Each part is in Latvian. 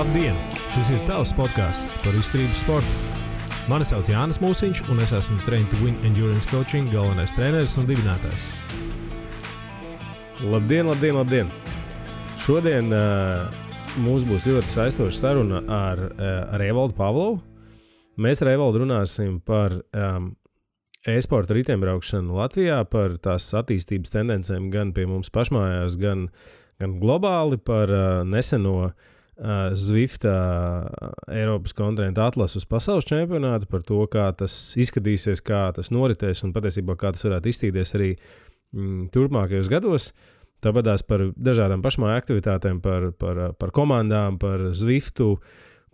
Labdien! Šis ir tavs podcasts par izturības sportu. Mani sauc Jānis Mūsiņš, un es esmu Train to Win Endurance Coaching galvenais treneris un dibinātājs. Labdien! Šodien mums būs ļoti saistoša saruna ar Evaldu Pavlovu. Mēs ar Evaldu runāsim par e-sporta riteņbraukšanu Latvijā, par tās attīstības tendencēm gan pie mums pašmājās, gan globāli, par neseno Zwifta Eiropas kontinenta atlases uz pasaules čempionātu, par to, kā tas izskatīsies, kā tas noritēs un patiesībā kā tas varētu izstīties arī turpmākajos gados. Tāpatās par dažādām pašmāju aktivitātēm, par komandām, par Zwiftu,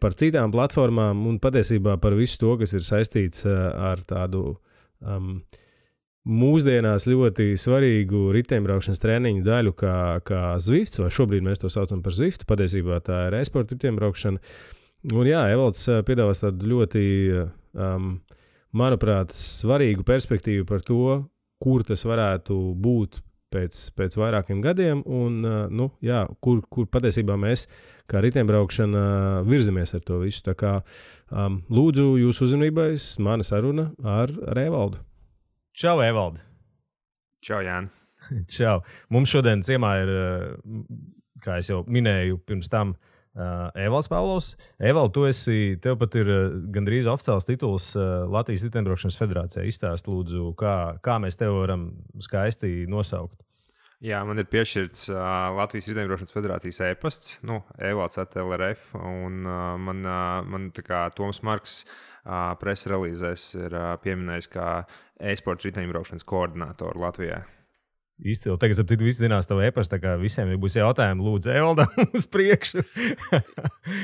par citām platformām un patiesībā par visu to, kas ir saistīts ar tādu mūsdienās ļoti svarīgu riteņbraukšanas treniņu daļu kā Zwifts, vai šobrīd mēs to saucam par Zwiftu, patiesībā tā ir e-sporta riteņbraukšana. Un jā, Evalds piedāvās tādu ļoti, manuprāt, svarīgu perspektīvu par to, kur tas varētu būt pēc vairākiem gadiem un, kur patiesībā mēs kā riteņbraukšana virzamies ar to visu. Tā kā lūdzu jūsu uzmanībai mana saruna ar Evaldu. Čau, Evaldi! Čau, Jāni! Čau! Mums šodien ciemā ir, kā es jau minēju pirms tam, Evalds Pavlovs. Evald, tev pat ir gandrīz oficiāls tituls Latvijas riteņbraukšanas federācijā. Izstāst, lūdzu, kā mēs tev varam skaisti nosaukt. Jā, man ir piešķirts Latvijas riteņbraukšanas federācijas e-pasts, Evalds @LRF, un man tā kā Toms Marks presa relīzēs ir pieminējis kā e-sports riteņbraukšanas koordinātoru Latvijā. Izcili. Tagad, ap citu, visi zinās tavu e-pastu, tā kā visiem būs jautājumi, lūdzu, Evaldam uz priekšu.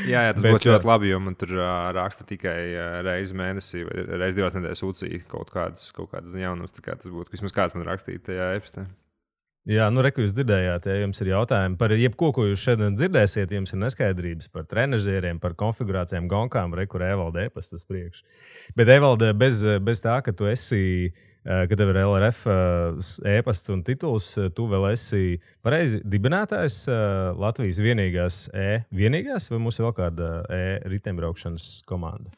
jā, tas būtu ļoti labi, jo man tur raksta tikai reizi mēnesī vai reizi 2 nedēļas UCI kaut kādas jaunumus, tā kā tas būtu, vismaz kāds man rakstīja tajā e-pastā. Jā, reku jūs dzirdējāt, ja jums ir jautājumi par jebko, ko jūs šodien dzirdēsiet, jums ir neskaidrības par trenažieriem, par konfigurācijām, gonkām, kur Evalda e-pastas priekš. Bet Evalda, bez tā, ka tu esi, ka tev ir LRF e-pasts un tituls, tu vēl esi pareizi dibinātājs Latvijas vienīgās, vai mums ir vēl kāda riteņbraukšanas komanda?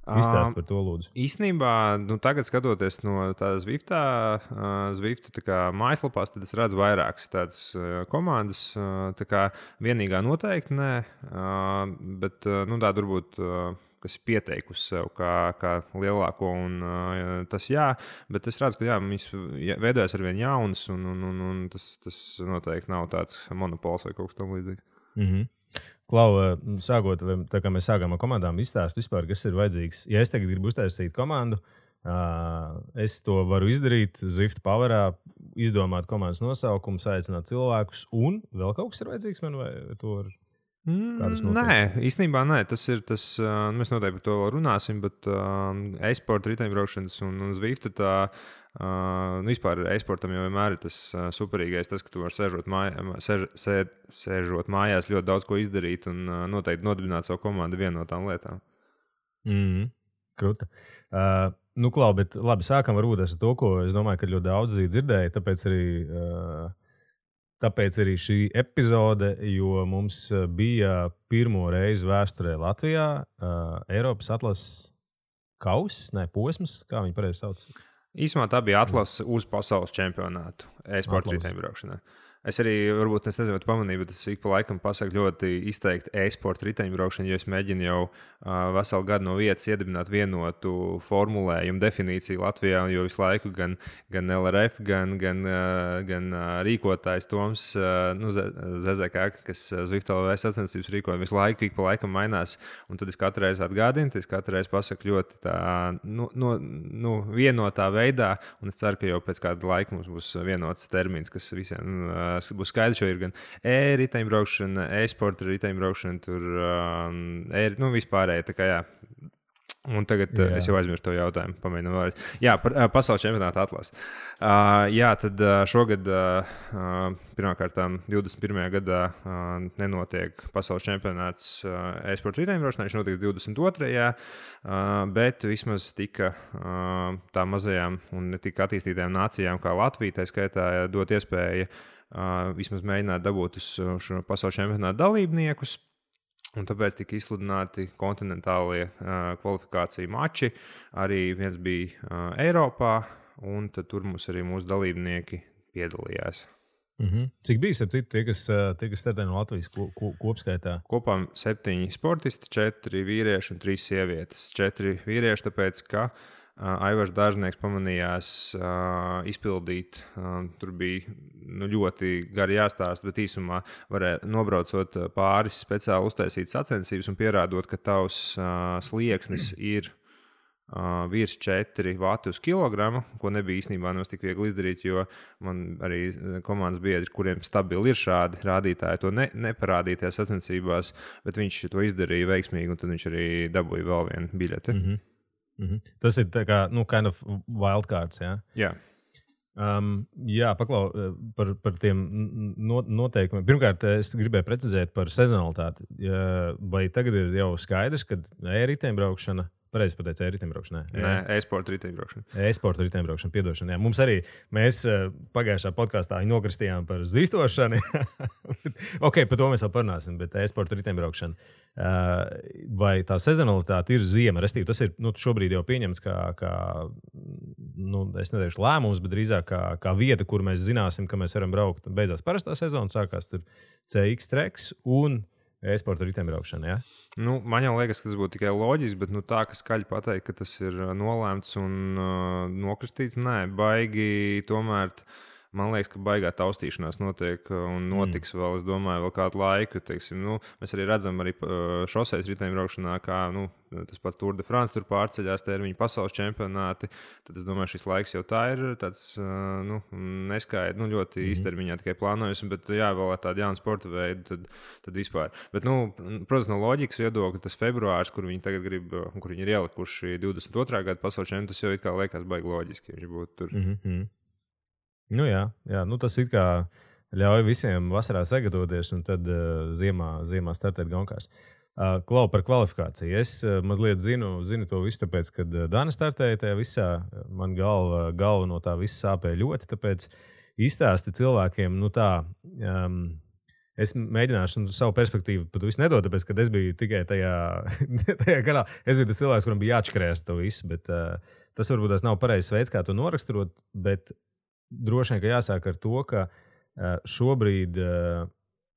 Izstāst par to, lūdzu. Īstenībā, tagad skatoties no tādas Zwifta mājaslapās, tad es redzu vairākas tādas komandas. Tā kā vienīgā noteikti nē, bet tā varbūt, kas ir pieteikusi sev kā lielāko, un tas jā, bet es redzu, ka viņas veidojas arvien jaunas, un tas noteikti nav tāds monopols vai kaut kas tam līdzīgs. Mhm. Klau, sākot, tā kā mēs sākām ar komandām, izstāst vispār, kas ir vajadzīgs. Ja es tagad gribu uztaisīt komandu, es to varu izdarīt Zwifta Powerā, izdomāt komandas nosaukumu, aicināt cilvēkus, un vēl kaut kas ir vajadzīgs man, vai to var? Nē, īstenībā nē. Mēs noteikti par to vēl runāsim, bet e-sporta riteņbraukšanas un Zwifta vispār e-sportam jau vienmēr ir tas superīgais, tas, ka tu vari sēžot mājās ļoti daudz ko izdarīt un noteikti nodibināt savu komandu vienu no tām lietām. Kruta. Klau, bet labi, sākam varbūt ar to, ko es domāju, ka ļoti daudz dzirdēja, Tāpēc arī šī epizode, jo mums bija pirmo reizi vēsturē Latvijā Eiropas atlases posms, kā viņi pareizi sauc? Īsumā tā bija atlase uz pasaules čempionātu e-sporta riteņbraukšanā. Es arī, varbūt, nezinu, vai tu pamanīji, bet es ik pa laikam pasaku ļoti izteikti e-sporta riteņbraukšanu, jo es mēģinu jau veselu gadu no vietas iedibināt vienotu formulējumu definīciju Latvijā, jo visu laiku gan LRF, gan rīkotājs Toms ZZK, kas Zwift LV sacensības rīkoja, visu laiku ik pa laikam mainās, un tad es katru reizi atgādinu, tad es katru reizi pasaku ļoti tā, vienotā veidā, un es ceru, ka jau pēc kāda laika mums būs vienots termins, kas visiem būs skaidrs, jo ir gan riteņbraukšana, e-sporta riteņbraukšana, tur vispārēji, tā kā jā. Un tagad es jau aizmirsu to jautājumu, pamēģinu vēlreiz. Jā, par pasaules čempionāta atlasi. Tad šogad pirmkārt 21. gadā nenotiek pasaules čempionāts e-sporta riteņbraukšanā, viņš notiek 22. Bet vismaz tika tām mazajām un ne tik attīstītajām nācijām kā Latvija, tā skaitā dot iespēju vismaz mēģināt dabūt uz šo pasaules čempionāta dalībniekus. Un tāpēc tika izsludināti kontinentālie kvalifikāciju mači. Arī viens bija Eiropā, un tur mums arī mūsu dalībnieki piedalījās. Cik bija tie, kas startē no Latvijas kopskaitā? Kopā 7 sportisti, 4 vīrieši un 3 sievietes. 4 vīrieši, tāpēc ka Aivars Dārznieks pamanījās izpildīt. Tur bija ļoti gari jāstāsta, bet īsumā varēja nobraucot pāris speciāli uztaisīt sacensības un pierādot, ka tavs slieksnis ir virs 4 vati uz kilogramu, ko nebija īstenībā tik viegli izdarīt, jo man arī komandas biedri, kuriem stabili ir šādi rādītāji, to neparādīja tajās sacensībās, bet viņš to izdarīja veiksmīgi, un tad viņš arī dabūja vēl vienu biļeti. Tas ir tā kā, kind of wildcards, jā? Jā. Jā, paklau par tiem noteikumiem. Pirmkārt, es gribēju precizēt par sezonalitāti. Vai tagad ir jau skaidrs, ka e-riteņbraukšana, pareizi pateicu, e-riteņbraukšana? Nē, e-sporta riteņbraukšana. E-sporta riteņbraukšana, piedošana. Jā. Mums arī, mēs pagājušā podkāstā nokristījām par zīstošanu. Ok, par to mēs vēl parunāsim, bet e-sporta riteņbraukšana. Vai tā sezonalitāte ir ziema? Restīvi, tas ir šobrīd jau pieņemts kā es neteikšu lēmums, bet drīzāk kā vieta, kur mēs zināsim, ka mēs varam braukt. Beidzās parastā sezona, sākās tur CX treks un e-sporta riteņbraukšana. Ja? Man jau liekas, ka tas būtu tikai loģiski, bet tā, ka skaļi pateikt, ka tas ir nolēmts un nokristīts, nē, baigi tomēr. Man liekas, ka baigā taustīšanās notiek un notiks vēl, es domāju, vēl kādu laiku. Teiksim, mēs arī redzam, arī šoseis riteņbraukšanā, kā tas pats Tour de France tur pārceļās termiņu pasaules čempionāti. Tad es domāju, šis laiks jau tā ir tāds neskaidrs, ļoti īstermiņā tikai plānojums, bet jā, vēl ar tādu jaunu sporta veidu, tad vispār. Bet, protams, no loģikas viedokļa tas februārs, kur viņi tagad grib, kur viņi ir ielikuši 22. gada pasaules čempionātu, tas jau it kā liekas baigi loģiski, ja viņš būtu tur. Jā, tas it kā ļauj visiem vasarā sagatavoties un tad ziemā startēt gonkās. Klau par kvalifikāciju. Es mazliet zinu to visu, tāpēc, kad Dana startēja tajā visā, man galva no tā visa sāpēja ļoti, tāpēc izstāsti cilvēkiem, es mēģināšu savu perspektīvu pat visu nedot, tāpēc, kad es biju tikai tajā garā. Es biju tas cilvēks, kuram bija jāatškrēst to visu, bet tas varbūt tas nav pareizs veids, kā to noraksturot, bet droši vien, ka jāsāk ar to, ka šobrīd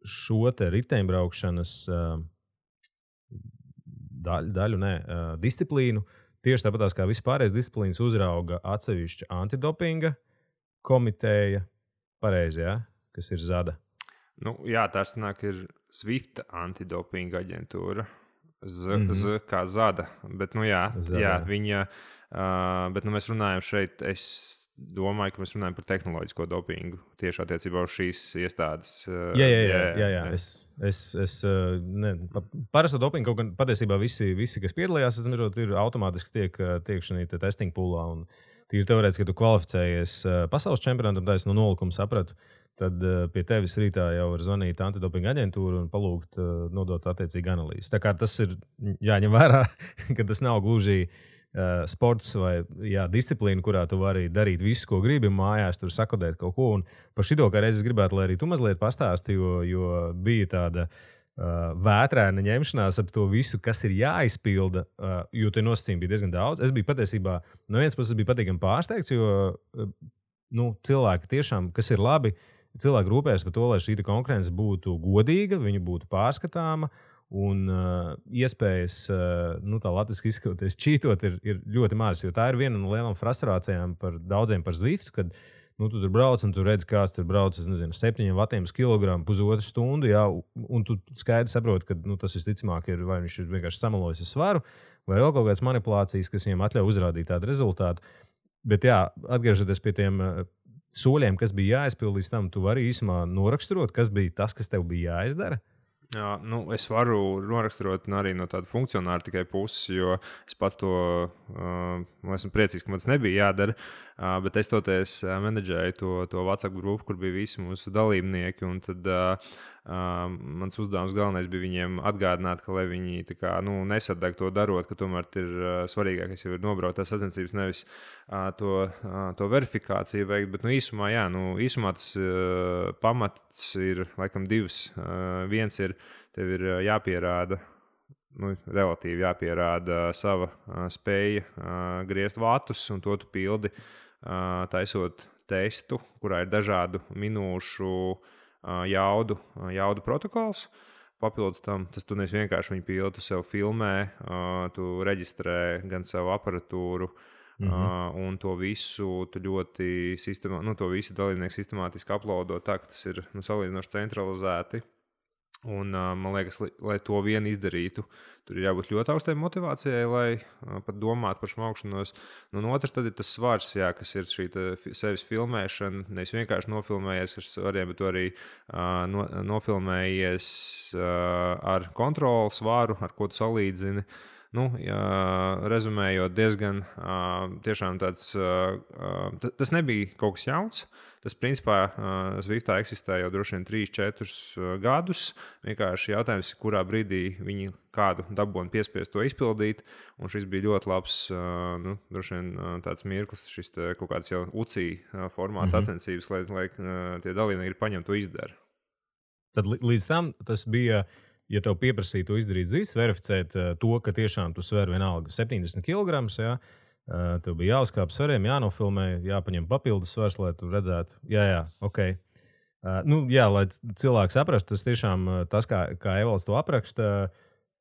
šo te riteņbraukšanas disciplīnu, tieši tāpat kā vispārējais disciplīnas uzrauga atsevišķa antidopinga komiteja, pareizi, ja? Kas ir ZADA. Jā, tas ir Swift antidopinga aģentūra. Z kā ZADA. Bet, viņa, bet mēs runājam šeit, es domāju, ka mēs runājam par tehnoloģisko dopingu tieši attiecībā uz šīs iestādes. Jā. Parasto dopingu kaut gan patiesībā visi, kas piedalījās, ir automātiski tiek šī testing poolā. Un tīri teorētiski, ka tu kvalificējies pasaules čempionātam, tā es no nolikuma sapratu, tad pie tevis rītā jau var zvanīt antidopinga aģentūru un palūgt nodot attiecīgi analīzes. Tā kā tas ir jāņem vērā, ka tas nav gluži sports vai disciplīna, kurā tu vari darīt visu, ko gribi mājās, tur sakodēt kaut ko. Un par šito kā reizi es gribētu, lai arī tu mazliet pastāsti, jo bija tāda vētrēna ņemšanās ap to visu, kas ir jāizpilda, jo tie nosacījumi bija diezgan daudz. Es biju patiesībā, no vienas puses biju patīkami pārsteigts, jo cilvēki tiešām, kas ir labi, cilvēki rūpējas par to, lai šī konkurence būtu godīga, viņa būtu pārskatāma. Un iespējas, tā latviski izskatoties, čītot ir ļoti maz. Jo tā ir viena no lielām frustrācijām par daudziem par Zwiftu, kad tu tur brauc un tu redz, kāds tur brauc 7 vatiem uz kilogramu, pusotru stundu, un tu skaidri saproti, ka tas visticamāk ir vai viņš ir vienkārši samalojis ar svaru, vai vēl kaut kādas manipulācijas, kas viņam atļauj uzrādīt tādu rezultātu. Bet atgriežoties pie tiem soļiem, kas bija jāizpild līdz tam, tu vari īsumā noraksturot, kas bija tas, kas tev bija jāizdara. Jā, es varu noraksturot arī no tāda funkcionāra tikai puses, jo es pats to esmu priecīgs, ka man tas nebija jādara. Bet es toties menedžēju to WhatsApp grupu, kur bija visi mūsu dalībnieki. Un tad mans uzdevums galvenais bija viņiem atgādināt, ka lai viņi nesadeg to darot, ka tomēr ir svarīgākais jau ir nobraukt tās sacensības, nevis to verifikāciju veikt. Bet īsumā tas pamats ir laikam divs. Viens ir, tev ir jāpierāda relatīvi jāpierāda sava spēja griezt vatus, un to tu pildi taisot testu, kurā ir dažādu minūšu jaudu protokols. Papildus tam, tu nevis vienkārši viņu pildi, tu sev filmē, tu reģistrē gan savu aparatūru, un to visu tu ļoti to visu dalībnieku sistemātiski uploado tā, ka tas ir salīdzinoši centralizēti. Un, man liekas, lai to vien izdarītu, tur ir jābūt ļoti augstai motivācijai, lai pat domātu par smaukšanos. Un otrs tad ir tas svars, kas ir šī sevis filmēšana. Nevis vienkārši nofilmējies ar svariem, bet arī nofilmējies ar kontrolu svaru, ar ko tu salīdzini. Rezumējot, diezgan tiešām tāds, tas nebija kaut kas jauns. Tas, principā, Zwiftā eksistē jau droši vien 3-4 gadus. Vienkārši jautājums, kurā brīdī viņi kādu dabūnu piespiest to izpildīt. Un šis bija ļoti labs, droši vien tāds mirklis, šis kaut kāds jau UCI formāts sacensības, lai tie dalībnieki paņem to izdara. Tad līdz tam tas bija, ja tev pieprasīja to izdarīt zīs, verificēt to, ka tiešām tu sver vienalga 70 kg, jā. Tev bija jāuzkāp svariem, jānofilmē, jāpaņem papildus svars, lai tu redzētu, ok. Lai cilvēks saprastu, tas tiešām tas, kā Evalds to apraksta,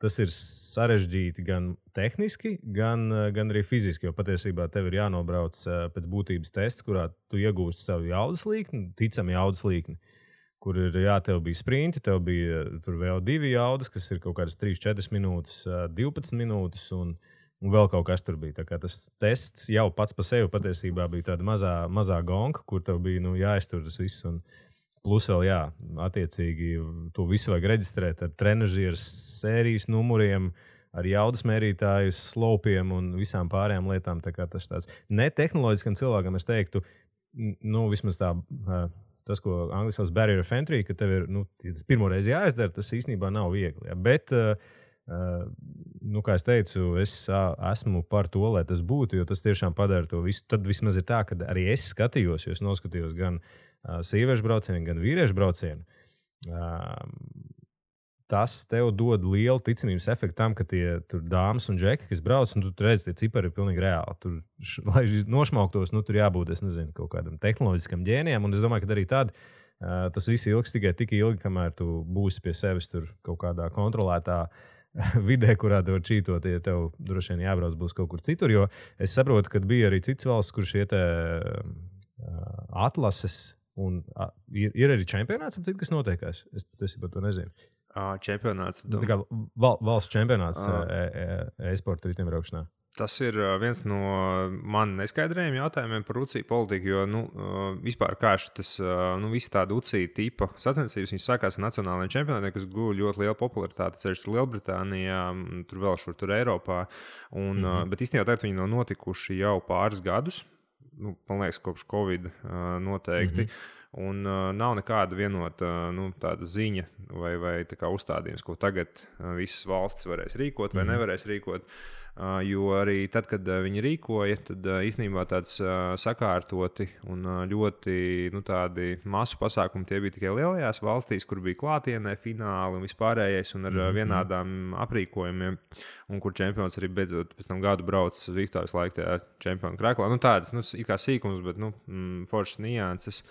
tas ir sarežģīti gan tehniski, gan arī fiziski, jo patiesībā tev ir jānobrauc pēc būtības tests, kurā tu iegūsti savu jaudas līkni, ticami jaudas līkni, kur ir, tev bija sprinti, tev bija tur vēl 2 jaudas, kas ir kaut kādas 3-4 minūtes, 12 minūtes un vēl kaut kas tur bija. Tā kā tas tests jau pats par sevi patiesībā bija tāda mazā gonka, kur tev bija jāiztur tas viss. Un plus vēl, attiecīgi, to visu vajag reģistrēt ar trenažieru sērijas numuriem, ar jaudas mērītāju slopiem un visām pārējām lietām. Tā kā tas tāds netehnoloģiskam cilvēkam, es teiktu, vismaz tā, tas, ko angliski sauc barrier of entry, ka tev ir, tas pirmoreiz jāizdara, tas īstenībā nav viegli. Ja? Bet kā es teicu, es esmu par to, lai tas būtu, jo tas tiešām padara to visu. Tad vismaz ir tā, ka arī es skatījos, jo es noskatījos gan sieviešu braucienu, gan vīriešu braucienu. Tas tev dod lielu ticamības efektu tam, ka tie tur dāmas un džeki, kas brauc, un tu redzi, tie cipari ir pilnīgi reāli. Tur, lai nošmauktos, tur jābūt, es nezinu, kaut kādam tehnoloģiskam ģēnijam, un es domāju, ka arī tad tas viss ilgs tikai tik ilgi, kamēr tu būsi pie sevis tur kaut kādā kontrolētā vidē, kurā tev čītot, ja tev droši vien jābrauc būs kaut kur citur, jo es saprotu, ka bija arī cits valsts, kur šie atlases un ir arī čempionāts, kas notiekās. Es patiesībā to nezinu. Čempionāts. Tā kā valsts čempionāts e-sporta riteņbraukšanā. Tas ir viens no man neskaidrajiem jautājumiem par UCI politiku, jo vispār kā tas visi tādi UCI tipa sacensības, viņas sākās ar nacionālajiem čempionātiem, kas guva ļoti lielu popularitāti, ceļš tur Lielbritānijā, tur vēl tur Eiropā. Bet īstenībā tagad viņi nav notikuši jau pāris gadus, man liekas, kopš Covid noteikti. Un nav nekāda vienota tāda ziņa vai tā kā uzstādījums, ko tagad visas valstis varēs rīkot vai nevarēs rīkot. Jo arī tad, kad viņi rīkoja, tad īstenībā tāds sakārtoti un ļoti tādi masu pasākumi tie bija tikai lielajās valstīs, kur bija klātienē fināli un vispārējais un ar vienādām aprīkojumiem, un kur čempions arī beidzot pēc tam gadu brauc uz Zwiftā visu laiku tajā čempionu krēklā. Tādas it kā sīkums, bet foršas nianses.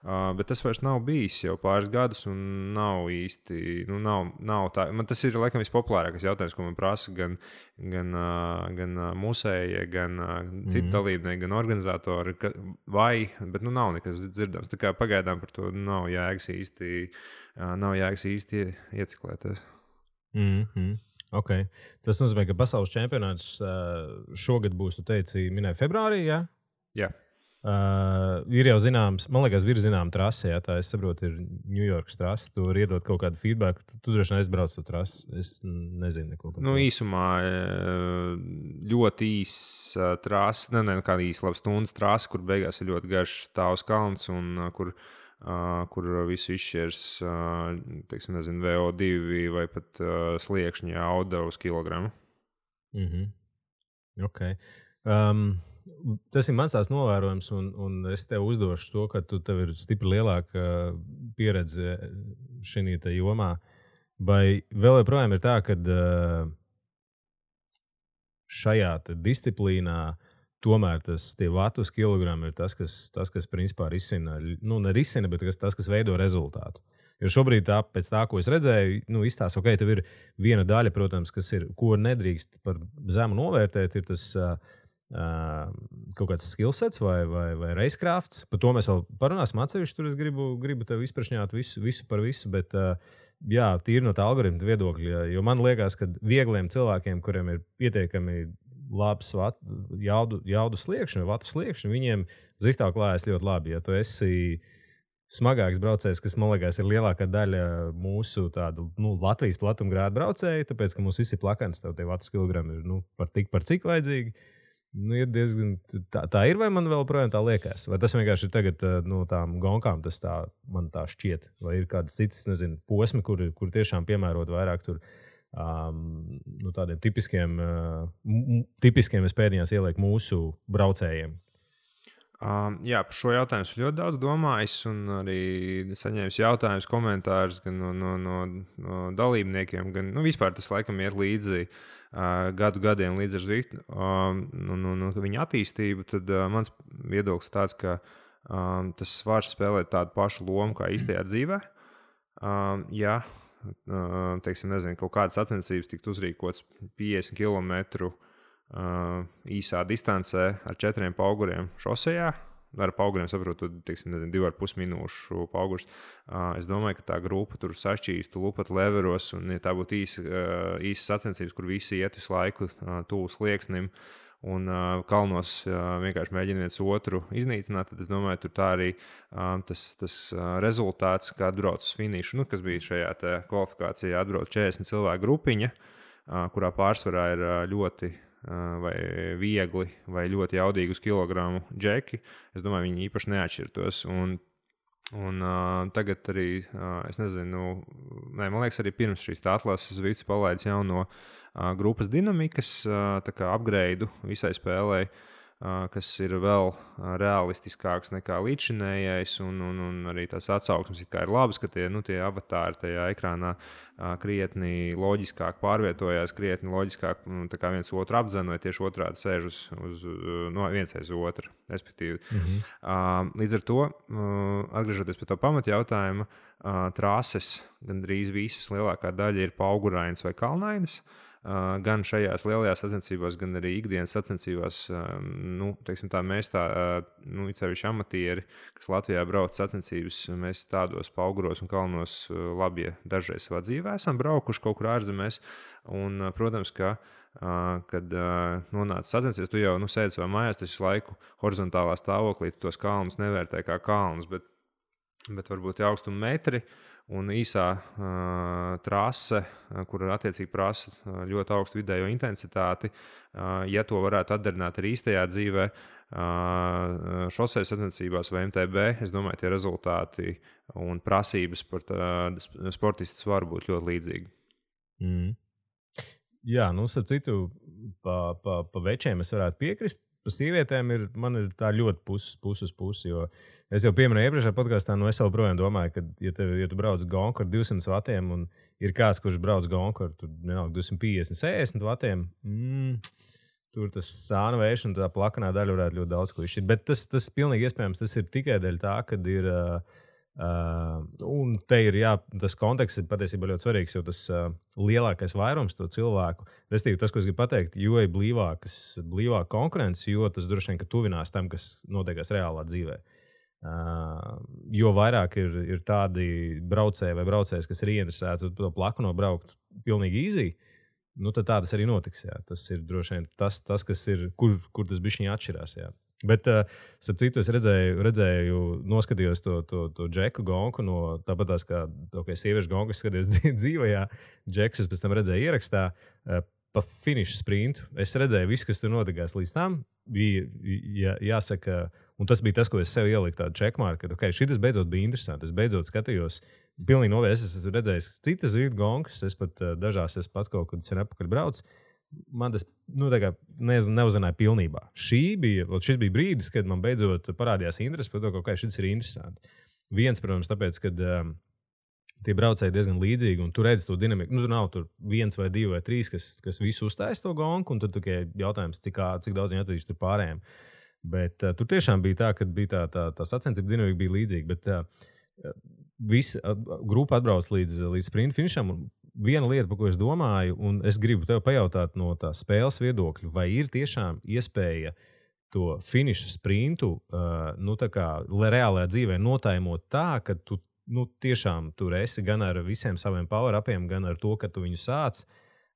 Bet tas vairs nav bijis jau pāris gadus, un nav īsti. Nav tā. Man tas ir laikam vispopulārākais jautājums, ko man prasa gan musēji, gan citi dalībnieki, gan organizatori. Bet nav nekas dzirdams. Tā kā pagaidām par to nav jēgas īsti ieciklēties. Okay. Tas nozīmē, ka pasaules čempionāts šogad būs, tu teici, minēja februārī, jā? Jā. Ir jau zināms, man liekas, ir zināma trase, tā es saprotu, ir Ņujorkas trase. Tu vari iedot kaut kādu feedback, tu droši vien aizbrauc to trasi. Es nezinu neko par to. Īsumā ļoti īsa trase, kāda īsa laba stundas trase, kur beigās ir ļoti garš stāvs kalns un kur visu izšķirs, teiksim, nezinu, VO2 vai pat sliekšņa auda uz kilogramu. Ok. Tas ir mans tās novērojums, un es tev uzdošu to, ka tev ir stipri lielāka pieredze šajā jomā. Vai vēl joprojām ir tā, ka šajā disciplīnā tomēr tie vatu uz kilogramu ir tas, kas principā risina, nerisina, bet tas, kas veido rezultātu. Jo šobrīd, pēc tā, ko es redzēju, izstāsta, ok, tev ir viena daļa, protams, ko nedrīkst par zemu novērtēt, ir tas kaut kāds skillsets vai racecrafts. Par to mēs vēl parunāsim atsevišķi. Tur es gribu tev izprašņāt visu par visu, bet jā, tīri no tā algoritma viedokļa. Jo man liekas, ka viegliem cilvēkiem, kuriem ir pietiekami labs jaudu sliekšņi vai vatu sliekšņi, viņiem ziftā klājas ļoti labi. Ja tu esi smagāks braucējs, kas, man liekas, ir lielākā daļa mūsu tādu, Latvijas platumgrādu braucēju, tāpēc, ka mums visi plakans, tev tie vatu kilogrami ir par cik vajadzīgi. Ir diezgan tā ir, vai man vēl projām tā liekas? Vai tas vienkārši ir tagad no tām gonkām, tas man tā šķiet? Vai ir kādas citas, nezinu, posmi, kur tiešām piemērot vairāk tur tādiem tipiskiem es pēdējās ielieku mūsu braucējiem? Jā, par šo jautājumu es ļoti daudz domājis un arī saņēmis jautājumus, komentārus gan no dalībniekiem, gan vispār tas laikam iet līdzi gadiem līdz ar Zwiftu viņa attīstību, tad mans viedoklis tāds, ka tas var spēlēt tādu pašu lomu kā īstajā dzīvē. Ja, teiksim, nezinu, kaut kādas sacensības tikt uzrīkots 50 km īsā distancē ar 4 pauguriem šosejā. Ar pauguriem saprotu, teiksim, 2,5 minūšu paugurs. Es domāju, ka tā grupa tur sašķīstu lupat leveros, un ja tā būtu īsa sacensības, kur visi iet visu laiku tuvu slieksnim un kalnos vienkārši mēģina viens otru iznīcināt, tad es domāju, tur tā arī tas rezultāts, kā atbrauc uz finišu, kas bija šajā kvalifikācijā, atbrauc 40 cilvēku grupiņa, kurā pārsvarā ir ļoti vai viegli, vai ļoti jaudīgi uz kilogramu džeki. Es domāju, viņi īpaši neatšķirtos. Un tagad arī, es nezinu, man liekas, arī pirms šīs atlases Zwifts palaidis jauno grupas dinamikas upgrade visai spēlei, kas ir vēl realistiskāks nekā līdzšinējais, un arī tās atsauksmes ir labas, ka tie avatāri tajā ekrānā krietni loģiskāk pārvietojās, krietni loģiskāk viens otru apzina, vai tieši otrādi sēž uz viens aiz otru, respektīvi. Līdz ar to, atgriežoties pie tā pamatjautājuma, trases gandrīz visas lielākā daļa ir paugurainas vai kalnainas. Gan šajās lielajās sacensībās, gan arī ikdienas sacensībās, teiksim tā, mēs cevišķi amatieri, kas Latvijā brauc sacensības, mēs tādos pauguros un kalnos labi dažreiz savā dzīvē esam braukuši kaut kur ārzemēs. Un, protams, ka, kad nonāca sacensības, tu jau sēdi savā mājās, tu visu laiku horizontālā stāvoklī, tu tos kalnus nevērtē kā kalnus, bet varbūt augstuma metri. Un īsā trase, kur attiecīgi prasa ļoti augstu vidējo intensitāti, ja to varētu atdarināt arī īstajā dzīvē, šosejas sacensībās vai MTB, es domāju, tie rezultāti un prasības par sportistus var būt ļoti līdzīgi. Jā, starp citu, pa večiem es varētu piekrist. Par sievietēm man ir tā ļoti pusi uz pusi, jo es jau pieminēju iepriekšējā podkāstā, es joprojām domāju, ka, ja tu brauc gonku ar 200 vatiem un ir kāds, kurš brauc gonku ar 250, 60 vatiem, tur tas sāna vējš un tā plakanā daļa varētu ļoti daudz ko izšķirt. Bet tas pilnīgi iespējams, tas ir tikai dēļ tā, kad ir... un te ir, tas konteksts ir patiesībā ļoti svarīgs, jo tas lielākais vairums to cilvēku, respektīvi tas, ko es gribu pateikt, jo ir blīvāka konkurence, jo tas droši vien, ka tuvinās tam, kas notiekās reālā dzīvē. Jo vairāk ir tādi braucēji vai braucējs, kas ir ieinteresēti to plaku nobraukt pilnīgi easy, tad tā tas arī notiks. Jā. Tas ir droši vien tas kas ir, kur tas bišķiņi atšķirās. Jā. Bet, starp citu, es redzēju, noskatījos to džeku gonku, tāpat tās kā sieviešu gonku, es skatījos dzīvajā, džekus es pēc tam redzēju ierakstā, pa finišu sprintu. Es redzēju visu, kas tur notikās līdz tam, bija jāsaka, un tas bija tas, ko es sev ieliku tādu checkmarku, ka šitas beidzot bija interesanti. Es beidzot skatījos, pilnīgi novēs, es esmu redzējis citas Zwift gonkas, es pat dažās es pats kaut kad sen apakaļ braucu. Man tas neuzrunāja pilnībā. Šis bija brīdis, kad man beidzot parādījās interesi par to, ka šis ir interesanti. Viens, protams, tāpēc, ka tie braucēji diezgan līdzīgi, un tu redzi to dinamiku. Tur nav tur 1 vai 2 vai 3, kas visu uztais to gonku, un tad tikai jautājums, cik daudz viņi atradīs tur pārējiem. Bet tur tiešām bija tā, ka bija tā sacensība dinamika bija līdzīga. Bet visi grupa atbrauc līdz sprint finišam. Viena lieta, par ko es domāju, un es gribu tev pajautāt no tā spēles viedokļa, vai ir tiešām iespēja to finiša sprintu, reālajā dzīvē notaimot tā, ka tu tiešām tur esi gan ar visiem saviem power-upiem, gan ar to, ka tu viņu sāc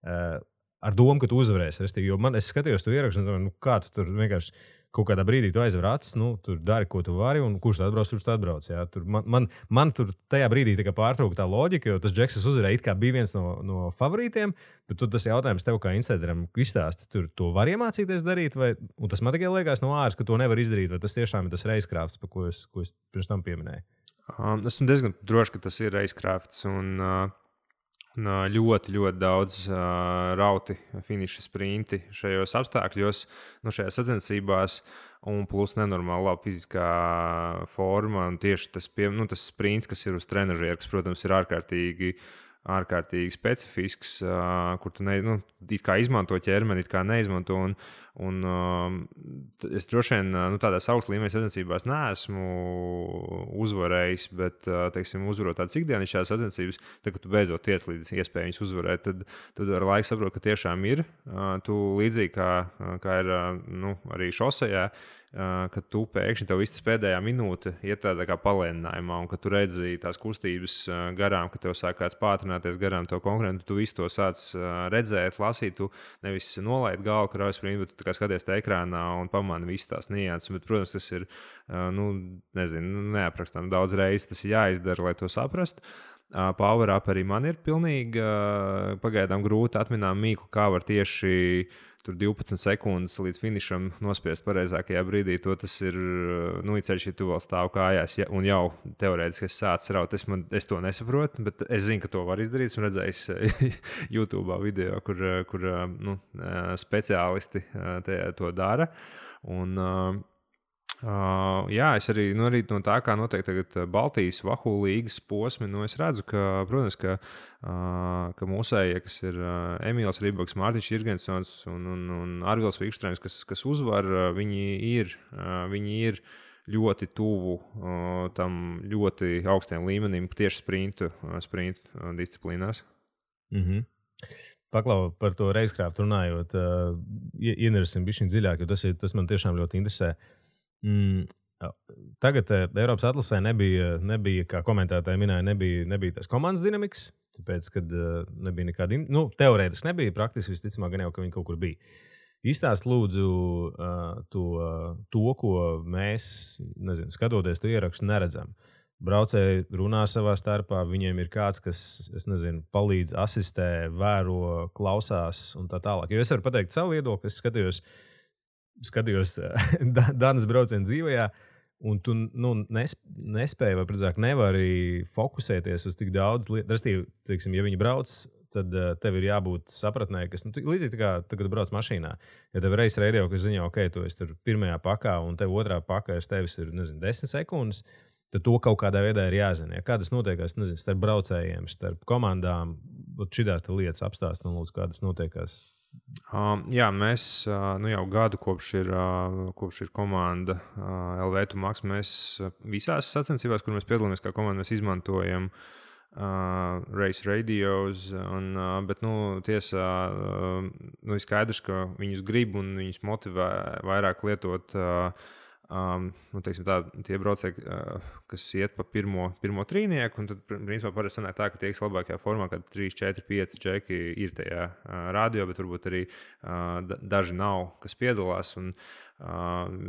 ar domu, ka tu uzvarēsi. Jo es skatījos to ierakstu un domāju, kā tu tur vienkārši kaut kādā brīdī tu aizver acis, tur dari, ko tu vari, un kurš atbrauc, kurš atbrauc. Jā. Tur man tur tajā brīdī pārtrauka tā loģika, jo tas Džeks uzvarēja, it kā bija viens no favorītiem, bet tas jautājums tev kā insideram izstāsti, tur to var iemācīties darīt, un tas man tikai liekas no āras, ka to nevar izdarīt, vai tas tiešām ir tas reizkrāfts, par ko es pirms tam pieminēju. Esmu diezgan drošs, ka tas ir reizkrāfts un ļoti, ļoti daudz rauti finiša sprinti šajos apstākļos, šajās sacensībās, un plus nenormāli laba fiziskā forma. Un tieši tas sprints, kas ir uz trenažera, kas, protams, ir ārkārtīgi specifisks, kur tu it kā izmanto ķermeni, it kā neizmanto. Es droši vien tādās augsta līmeņa sacensībās neesmu uzvarējis, bet, uzvarot tādas ikdienišķās sacensības, tad, kad tu beidzot tiec līdz iespēju viņus uzvarēt, tad ar laiku saproti, ka tiešām ir. Tu līdzīgi kā ir arī šosejā, kad tu pēkšņi tev viss pēdējā minūte iet tādā kā palēninājumā, un kad tu redzi tās kustības garām, ka tev sāk kāds pātrināties garām tev konkurentu, tu visu to sāc redzēt, lasīt, tu nevis nolaid galvu kraujas sprintu, bet tu kā skaties te ekrānā un pamani visas tās nianses. Bet, protams, tas ir, neaprakstām daudz reizes, tas ir jāizdara, lai to saprastu. Power up arī man ir pilnīgi pagaidām grūti atminām mīklu, kā var tieši tur 12 sekundes līdz finišam nospiest pareizākajā brīdī. Tas ir, ceļš, ja tu vēl stāv kājās un jau teorētiski sācis raut. Es to nesaprotu, bet es zinu, ka to var izdarīt. Esmu redzējis YouTube video, kur speciālisti to dara. Un, es arī no tā, kā notiek tagad Baltijas Vahu līgas posmi, es redzu, ka, protams, ka mūsējie, kas ir Emīls Rībaks, Mārtiņš Jirgensons un Arvils Vikštrēms, kas uzvar, viņi ir ļoti tuvu tam ļoti augstiem līmenim tieši sprintu disciplīnās. Mhm. Paklau par to reizkrāftu runājot, ienersim bišķiņ dziļāk, jo tas man tiešām ļoti interesē. Tagad Eiropas atlasē nebija, kā komentētāji minēja, nebija tās komandas dinamikas, tāpēc, kad nebija nekāda, teorētiski nebija, praktiski visticamāk gan jau, ka viņi kaut kur bija. Izstāst lūdzu to, ko mēs, skatoties to ierakstu, neredzam. Braucēji runā savā starpā, viņiem ir kāds, kas, palīdz, asistē, vēro, klausās un tā tālāk. Jo es varu pateikt savu viedokli, es skatījos Danas braucienu dzīvajā, un tu nespēji, vai precīzāk nevari fokusēties uz tik daudz lietu. Respektīvi, ja viņi brauc, tad tev ir jābūt sapratnē, kas līdzīgi tā kā tagad brauc mašīnā. Ja tev reiz radio, kas ziņo, ok, tu esi tur pirmajā pakā, un tev otrā pakā tevis ir 10 sekundes, tad to kaut kādā veidā ir jāzina. Kā tas notiekās, starp braucējiem, starp komandām, šitās lietas apstāst, un lūdzu, kā tas notiekās. Mēs jau gadu kopš ir komanda LV Max, mēs visās sacensībās, kur mēs piedalāmies kā komanda, mēs izmantojam race radios, bet tiesā ir skaidrs, ka viņus grib un viņus motivē vairāk lietot tie braucēji, kas iet pa pirmo trīnieku, un tad, principā, parasti sanāk tā, ka tie, kas labākajā formā, kad 3, 4, 5 džeki ir tajā radio, bet varbūt arī daži nav, kas piedalās, un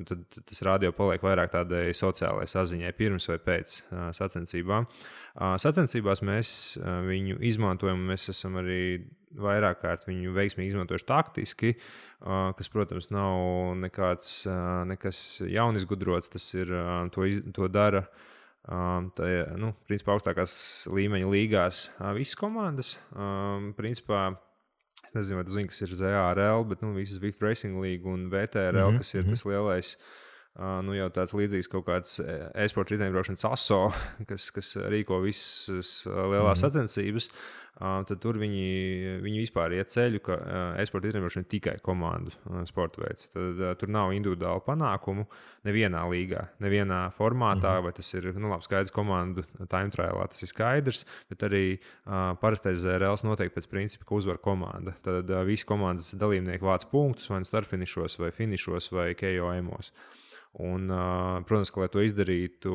tad tas radio paliek vairāk tādai sociālai saziņai pirms vai pēc sacensībām. Sacensībās mēs viņu izmantojam, mēs esam arī vairāk kārt viņu veiksmīgi izmantojuši taktiski, kas, protams, nav nekas jaunizgudrots, tas ir, to dara principā augstākās līmeņa līgās visas komandas. Principā, es nezinu, vai tu zini, kas ir ZARL, bet visas Vift Racing League un VTRL, kas ir tas lielais jau tāds līdzīgs kaut kāds e-sporta riteņbraukšanas aso, kas rīko visas lielās sacensības, tad tur viņi vispār iet ceļu, ka e-sporta riteņbraukšana ir tikai komandu sporta veids. Tad tur nav individuālu panākumu nevienā līgā, nevienā formātā, vai tas ir skaidrs komandu time trialā, tas ir skaidrs, bet arī parastais ZRLs noteikti pēc principa, ka uzvar komanda. Tad visi komandas dalībnieki vāc punktus, vai startfinišos, vai finišos, vai KOM-os. Un, protams, ka, lai to izdarītu,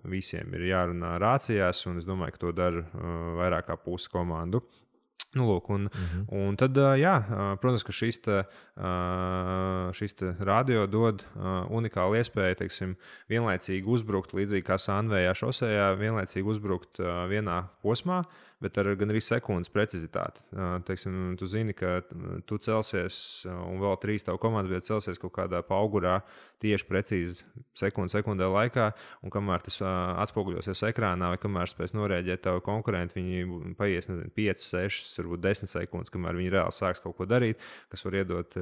visiem ir jārunā rācijās, un es domāju, ka to dara vairāk kā pusi komandu. Lūk, un tad, protams, ka šis radio dod unikālu iespēju, teiksim, vienlaicīgi uzbrukt, līdzīgi kā Sanvējā šosejā, vienlaicīgi uzbrukt vienā posmā, bet ar gan arī sekundes precizitāti. Teiksim, tu zini, ka tu celsies, un vēl 3 tavu komandas biedri celsies kaut kādā paugurā tieši precīzi sekundē laikā, un kamēr tas atspoguļosies ekrānā, vai kamēr spēs norēģēt tavu konkurentu, viņi paies, 5, 6, varbūt 10 sekundes, kamēr viņi reāli sāks kaut ko darīt, kas var iedot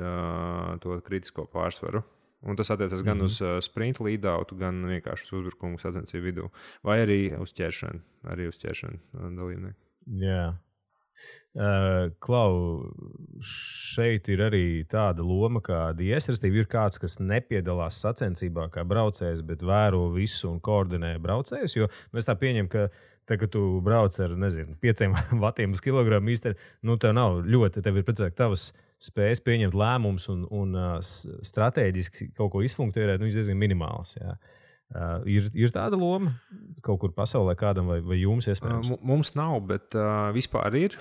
to kritisko pārsvaru. Un tas attiecas gan uz sprint lead-outu, gan vienkārši uz uzbrukumu sacensību vidū, vai arī uz ķeršanu dalībnieku. Jā. Klau, šeit ir arī tāda loma, kā DS, respektīvi ir kāds, kas nepiedalās sacensībā kā braucējs, bet vēro visu un koordinē braucējus, jo es tā pieņemu, ka kad tu brauc ar, 5 vatiem uz kilogramu īstenībā, tev nav ļoti, tev ir precīzāk tavas spējas pieņemt lēmumus un strateģiski kaut ko izfunkcionēt, viņš diezgan minimāls, jā. Ir tāda loma kaut kur pasaulē kādam vai jums iespējams? Mums nav, bet vispār ir.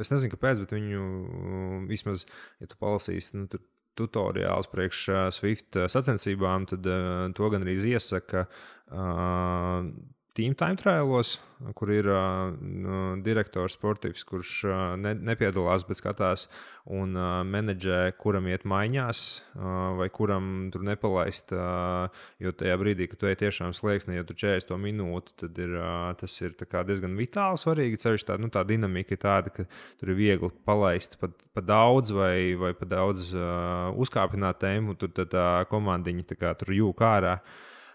Es nezinu, kāpēc, bet viņu vismaz, ja tu palasīsi tutoriāls priekš Swift sacensībām, tad to gan arī iesaka Team Time Trialos, kur ir direktors sportīvs, kurš nepiedalās, bet skatās un menedžē, kuram iet maiņās vai kuram tur nepalaist, jo tajā brīdī, kad tu ej tiešām slieksnī, ja tu 40 minūti, tad tas ir diezgan vitāli svarīgi. Ceļš tā dinamika ir tāda, ka tur ir viegli palaist pa daudz vai pa daudz uzkāpināt tēmu, tur tā komandiņa tur jūk ārā.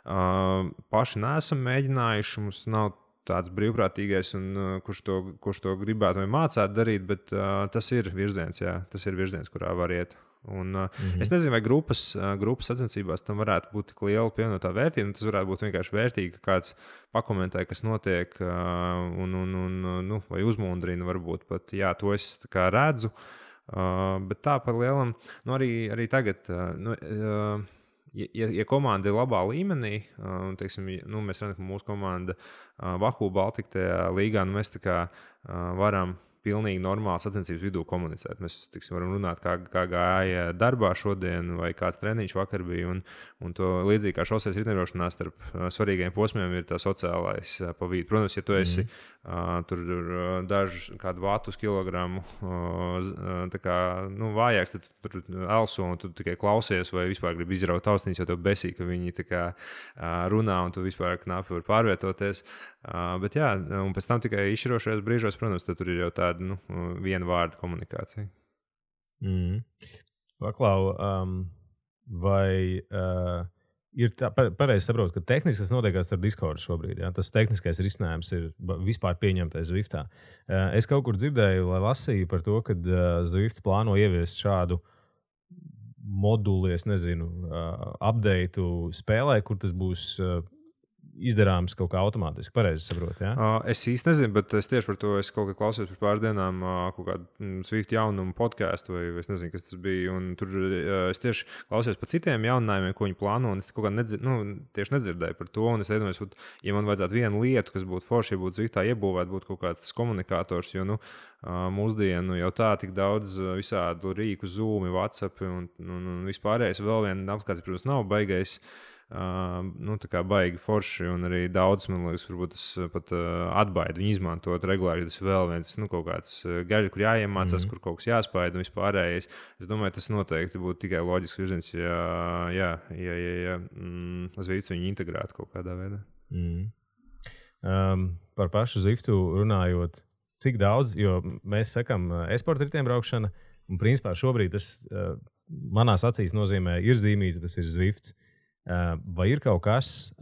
Paši neesam mēģinājuši, mums nav tāds brīvprātīgais, kurš to gribētu vai mācētu darīt, bet tas ir virziens, tas ir virziens, kurā var iet. Un, es nezinu, vai grupas sacensībās tam varētu būt tik liela pievienotā vērtība. Tas varētu būt vienkārši vērtīgi, ka kāds pakomentē, kas notiek, vai uzmundrina, varbūt pat, to es redzu. Bet tā par lielam, arī tagad. Ja komanda ir labā līmenī, teiksim, mēs redzam, ka mūsu komanda Vahu Baltika tajā līgā, mēs varam pilnīgi normāli sacensības vidū komunicēt. Mēs varam runāt, kā gāja darbā šodien, vai kāds treniņš vakar bija. Un to līdzīgi kā šoseis riteņbraukšanā starp svarīgiem posmiem ir tā sociālais pa vidu. Protams, ja tu esi tur dažu kādu vatu uz kilogramu vājāks, tad tu tur elso un tu tikai klausies vai vispār gribi izraut austiņas, jo tev besī, ka viņi runā un tu vispār knapi var pārvietoties. Bet un pēc tam tikai izšķirošajos brīžos, protams, tur ir jau tāda viena vārda komunikācija. Paklau, vai ir tā, pareizi saprotu, ka tehniski tas notiekās ar Discord šobrīd, tas tehniskais risinājums ir vispār pieņemtais Zwiftā. Es kaut kur dzirdēju, lai lasīju par to, ka Zwifts plāno ieviest šādu moduli, es nezinu, updateu spēlē, kur tas būs izdarāms kaut kā automātiski. Pareizi saprotu, Es īsti nezinu, bet es tieši par to kaut kā klausījos par pāris dienām kaut kādu Swift jaunumu podcastu, vai es nezinu, kas tas bija. Un tur es tieši klausījos par citiem jauninājumiem, ko viņi plāno, un es kaut kā tieši nedzirdēju par to. Un es iedomājos, ja man vajadzētu vienu lietu, kas būtu forši, ja būtu Swiftā iebūvēt, būtu kaut kāds tas komunikators, jo mūsdienu jau tā tik daudz visādu rīku, Zoom, WhatsApp un vispārējais. Vēl viena apskats, protams, nav baigais. Tā kā baigi forši, un arī daudz, man liekas, varbūt tas pat atbaida viņu izmantot regulāri, jo tas vēl viens kaut kāds gaļa, kur jāiemācās, kur kaut kas jāspēj un vispārējais. Es domāju, tas noteikti būtu tikai loģisks virziens, ja Zwifts viņu integrētu kaut kādā veidā. Par pašu Zwiftu runājot, cik daudz, jo mēs sakam e-sporta riteņbraukšana, un principā šobrīd tas manās acīs nozīmē ir zīmīti, tas ir Zwifts. Vai ir kaut kas,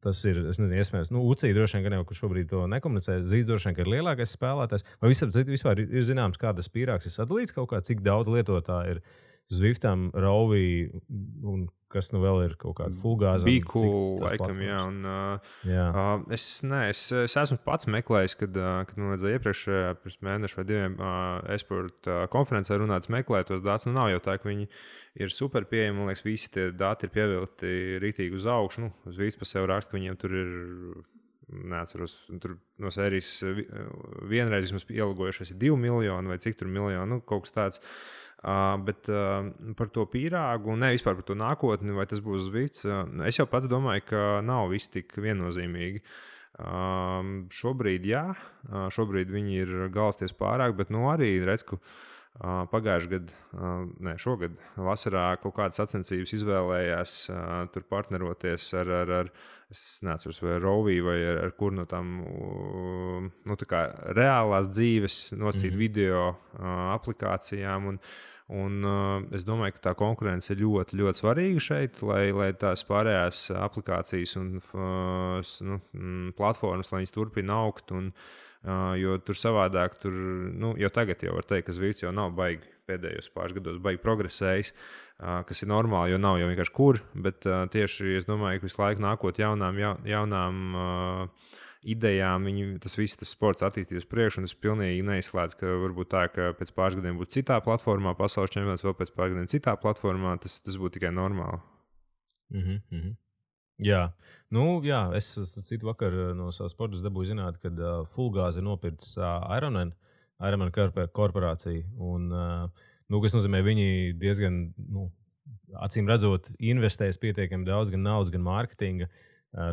tas ir, es nezinu, iespējams, UCI droši vien, ka jau šobrīd to nekomunicē, Zīds droši vien, ka ir lielākais spēlētājs, vai vispār ir zināms, kā tas pīrāgs ir sadalīts kaut kā, cik daudz lietotāji ir Zwiftam, Rovī un kas vēl ir kaut kāda fulgāza. Bīku, laikam, jā. Un, es esmu pats meklējis, kad man vajadzēja pirms mēneša vai 2 esporta konferencē runāt, meklēt tos datus. Nav jau tā, ka viņi ir super pieejami. Man liekas, visi tie dati ir pievilkti rītīgi uz augšu. Zwifts pa sev raksta, ka viņiem tur ir, neatceros, tur no sērijas vienreiz vismaz ielgojušies 2 miljoni vai cik tur miljoni, kaut kas tāds. Bet par to pīrāgu, ne vispār par to nākotni, vai tas būs Zwifts, es jau pats domāju, ka nav viss tik viennozīmīgi. Šobrīd, jā, šobrīd viņi ir galsties pārāk, bet arī redz, ka šogad vasarā kaut kādas sacensības izvēlējās tur partneroties ar es neatceros, vai Rovī vai ar kur no tām tā kā reālās dzīves nosīt video aplikācijām. Un es domāju, ka tā konkurence ir ļoti, ļoti svarīga šeit, lai tās pārējās aplikācijas un platformas, lai viņas turpina augt. Jo tur savādāk, jau tagad jau var teikt, ka Zwifts jau nav baigi pēdējos pāris gados baigi progresējis, kas ir normāli, jo nav jau vienkārši kur. Bet tieši es domāju, ka visu laiku nākot jaunām idejām, tas sports attīstīs priekšu, un es pilnīgi neizslēdzu, ka varbūt tā, ka pēc pāris gadiem būs citā platformā, pasaules čempionāts, vēl pēc pāris gadiem citā platformā, tas būtu tikai normāli. Jā, es citu vakar no savas sportas dabūju zināt, ka Fulgāze ir nopircis Ironman korporāciju, un, kas nozīmē, viņi diezgan, acīm redzot, investēs pietiekami daudz gan naudas, gan mārketinga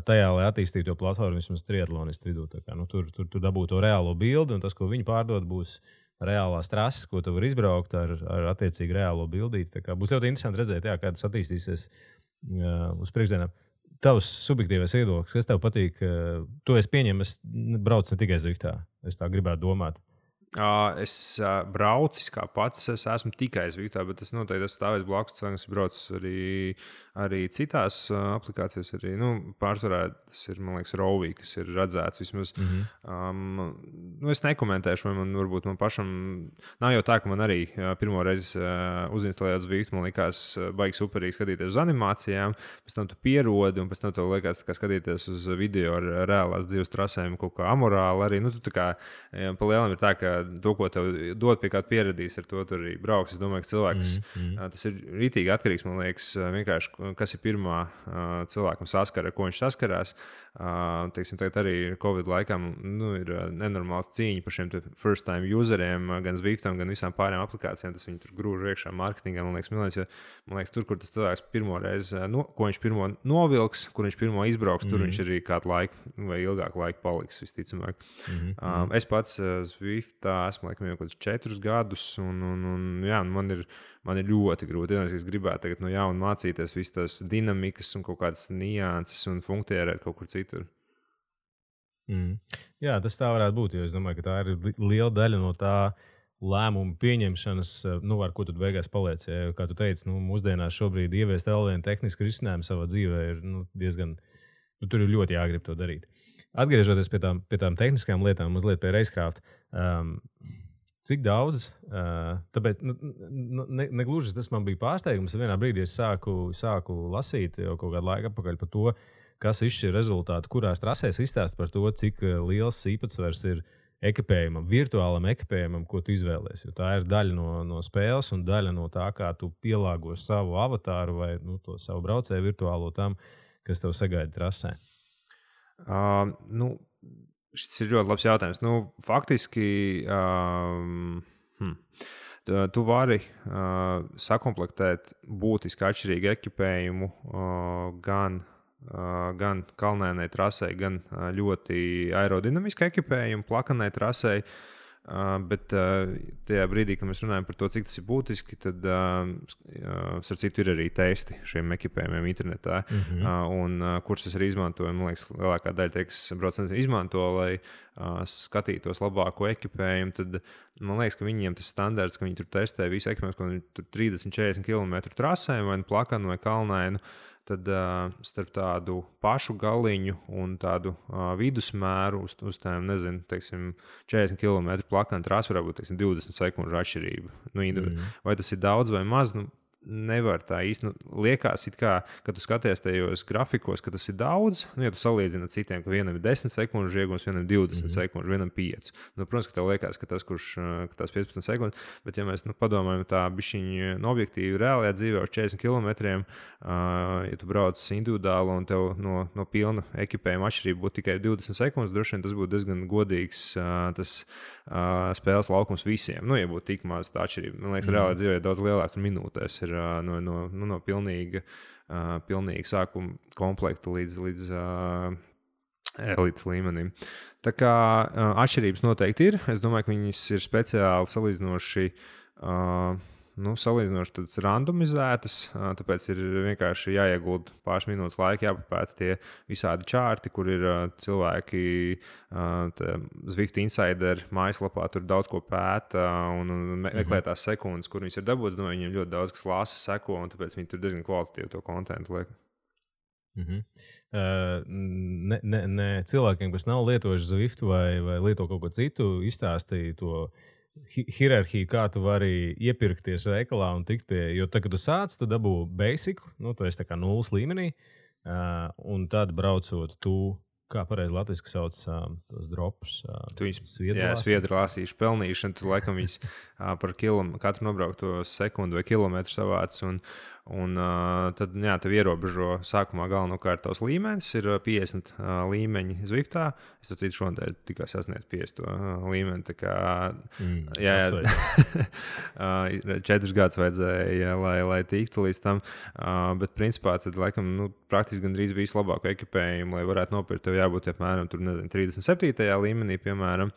tajā, lai attīstītu to platformu vismaz triatlonistu vidū. Tur dabūtu to reālo bildi, un tas, ko viņi pārdod, būs reālās trases, ko tu vari izbraukt ar attiecīgi reālo bildīti. Būs ļoti interesanti redzēt, kā tas attīstīsies uz priekšdienām. Tavs subjektīvais viedoklis, kas tev patīk? To es pieņemu, es braucu ne tikai Zviftā. Es tā gribētu domāt. Es braucu kā pats, es esmu tikai Zviftā, bet es noteikti esmu stāvējis blakus cilvēkiem, kas brauc arī citās aplikācijās. Pārsvarā tas ir, man liekas, Rovī, kas ir redzēts vismaz. Es nekomentēšu, vai varbūt man pašam nav jau tā, ka man arī pirmo reizi uzinstalējot Zwiftu, man likās baigi superīgi skatīties uz animācijām, pēc tam tu pierodi, un pēc tam tev liekas skatīties uz video ar reālās dzīves trasēm kaut kā amorāli arī. Tu tā kā pa lielam ir tā, ka to, ko tev dod, pie kāda pieradīs, ar to tur arī brauks. Es domāju, ka cilvēks, tas ir rītīgi atkarīgs, man liekas, vienkārši, kas ir pirmā cilvēkam saskara, ar ko viņš saskarās. Teiksim, tagad arī Covid laikam ir nenormāls cīņa par šiem first time useriem, gan Zwiftam, gan visām pārējām aplikācijām. Tas viņi tur grūž iekšā mārketingā, man liekas, milēns, jo, man liekas, tur, kur tas cilvēks pirmo reizi, ko viņš pirmo novilks, kur viņš pirmo izbrauks, tur viņš arī kādu laiku vai ilgāku laiku paliks, visticamāk. Es pats Zwiftā esmu laikam jau kaut kādus 4 gadus, un man ir ļoti grūti. Es gribētu tagad no jauna mācīties visas tās dinamikas un kaut kādas nianses un funkcionēt kaut kur citur. Jā, tas tā varētu būt, jo es domāju, ka tā ir liela daļa no tā lēmumu pieņemšanas, ar ko tu beigās paliec. Ja, kā tu teici, mūsdienās šobrīd ieviest vēl vienu tehnisku risinājumu savā dzīvē ir diezgan, tur ir ļoti jāgrib to darīt. Atgriežoties pie tām tehniskām lietām, mazliet pie Racecraft, cik daudz, tāpēc negluži tas man bija pārsteigums. Vienā brīdī es sāku lasīt jau kaut kādu laiku atpakaļ par to, kas izšķir rezultātu, kurās trasēs izstāst par to, cik liels īpatsvars ir ekipējumam, virtuālam ekipējumam, ko tu izvēlies. Jo tā ir daļa no spēles un daļa no tā, kā tu pielāgo savu avatāru vai to savu braucēju virtuālo tam, kas tev sagaida trasē. Šis ir ļoti labs jautājums. Faktiski tu vari sakomplektēt būtiski atšķirīgu ekipējumu gan kalnēnai trasei, gan ļoti aerodinamiskai ekipējumu, plakanai trasei. Bet tajā brīdī, kad mēs runājam par to, cik tas ir būtiski, tad starp citu ir arī testi šiem ekipējumiem internetā, kurus es arī izmantoju. Man liekas, lielākā daļa tie, kas brauc izmanto, lai skatītos labāko ekipējumu, tad man liekas, ka viņiem tas standarts, ka viņi tur testē visu ekipējumu, ka viņi tur 30-40 km trasēm vai plakanu vai kalnainu, tad starp tādu pašu galiņu un tādu vidusmēru uz tām, nezinu, teiksim, 40 km plakana trasa varētu būt, teiksim, 20 sekundžu atšķirība. Vai tas ir daudz vai maz? Nevar tā īsti. Liekas, kā, kad tu skaties tajos grafikos, ka tas ir daudz. Ja tu salīdzini ar citiem, ka vienam ir 10 sekundžu iegūms, vienam 20 sekundžu, vienam 5. Protams, ka tev liekas, ka tās 15 sekundes, bet ja mēs padomājam tā bišķiņi objektīvi reālajā dzīvē uz 40 km, ja tu brauc individuāli un tev no pilna ekipējuma atšķirība būtu tikai 20 sekundes, droši vien tas būtu diezgan godīgs tas spēles laukums visiem. Ja būtu tik maz tā atšķirība. Man liekas, reālajā dzīvē daudz lielāk tur minūtēs ir no pilnīga sākuma komplekta līdz elites līmenim. Tā kā atšķirības noteikti ir. Es domāju, ka viņas ir speciāli salīdzinoši randomizētas, tāpēc ir vienkārši jāiegulda pāris minūtes laika, jāpapēta tie visādi čārti, kur ir cilvēki Zwift Insider mājaslapā, tur daudz ko pēta un meklē tās sekundes, kur viņas ir dabūtas. Domāju, viņiem ļoti daudz kas lasa, seko, un tāpēc viņi tur diezgan kvalitatīvi to kontentu liek. Ne cilvēkiem, kas nav lietojuši Zwift vai lieto kaut ko citu, izstāstīja to hierarhiju, kā tu vari iepirkties veikalā un tikt pie, jo tad, kad tu sāc, tu dabū basicu, tu esi tā kā nulles līmenī, un tad braucot kā pareizi latviski sauc tos dropus. Tu viņus sviedru lāsīšu pelnīšanu, tu laikam viņus par katru nobraukto sekundu vai kilometru savāc, un tad, tev ierobežo sākumā galvenokārt tavs līmenis, ir 50 līmeņi Zwiftā. Es atcītu šodien tikai sasniedz 50 līmeni, tā kā 4 gadus vajadzēja, lai tiktu līdz tam, bet principā tad, laikam, praktiski gandrīz visu labāko ekipējumu, lai varētu nopirkt, tev jābūt apmēram 37. līmenī, piemēram.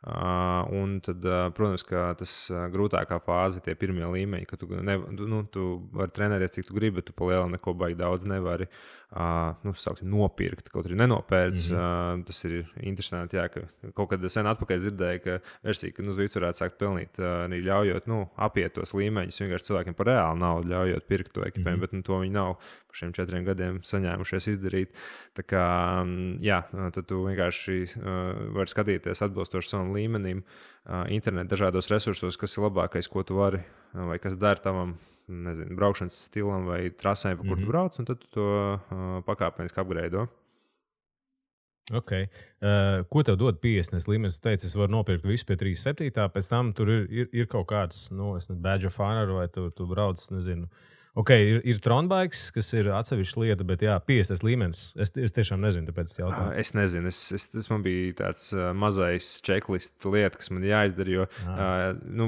Un tad, protams, ka tas grūtākā fāze ir tie pirmie līmeņi, ka tu vari trenēties, cik tu gribi, bet tu pa lielu neko baigi daudz nevari nopirkt, kaut arī nenopērts. Tas ir interesanti, ka kaut kad sen atpakaļ dzirdēju, ka versija, ka Zwift varētu sākt pelnīt, arī ļaujot apiet tos līmeņus, vienkārši cilvēkiem par reālu naudu ļaujot pirkt to ekipējumu, bet to viņi nav par šiem 4 gadiem saņēmušies izdarīt. Tā kā, tad tu vienkārši vari skatīties atbilstoši savam līmenim internetu dažādos resursos, kas ir labākais, ko tu vari vai kas dara tavam, nezinu, braukšanas stilam vai trasēm, pa kur tu brauc, un tad tu to pakāpeniski upgrade. Ok. Ko tev dod 50 līmenis? Tu teici, es varu nopirkt visu pie 37. Pēc tam tur ir kaut kāds, badge of honor, vai tu brauc, nezinu. Ok, ir Tronbikes, kas ir atsevišķa lieta, bet 50 līmenis. Es tiešām nezinu, tāpēc es jautāju. Es nezinu, tas man bija tāds mazais checklist lieta, kas man jāizdara, jo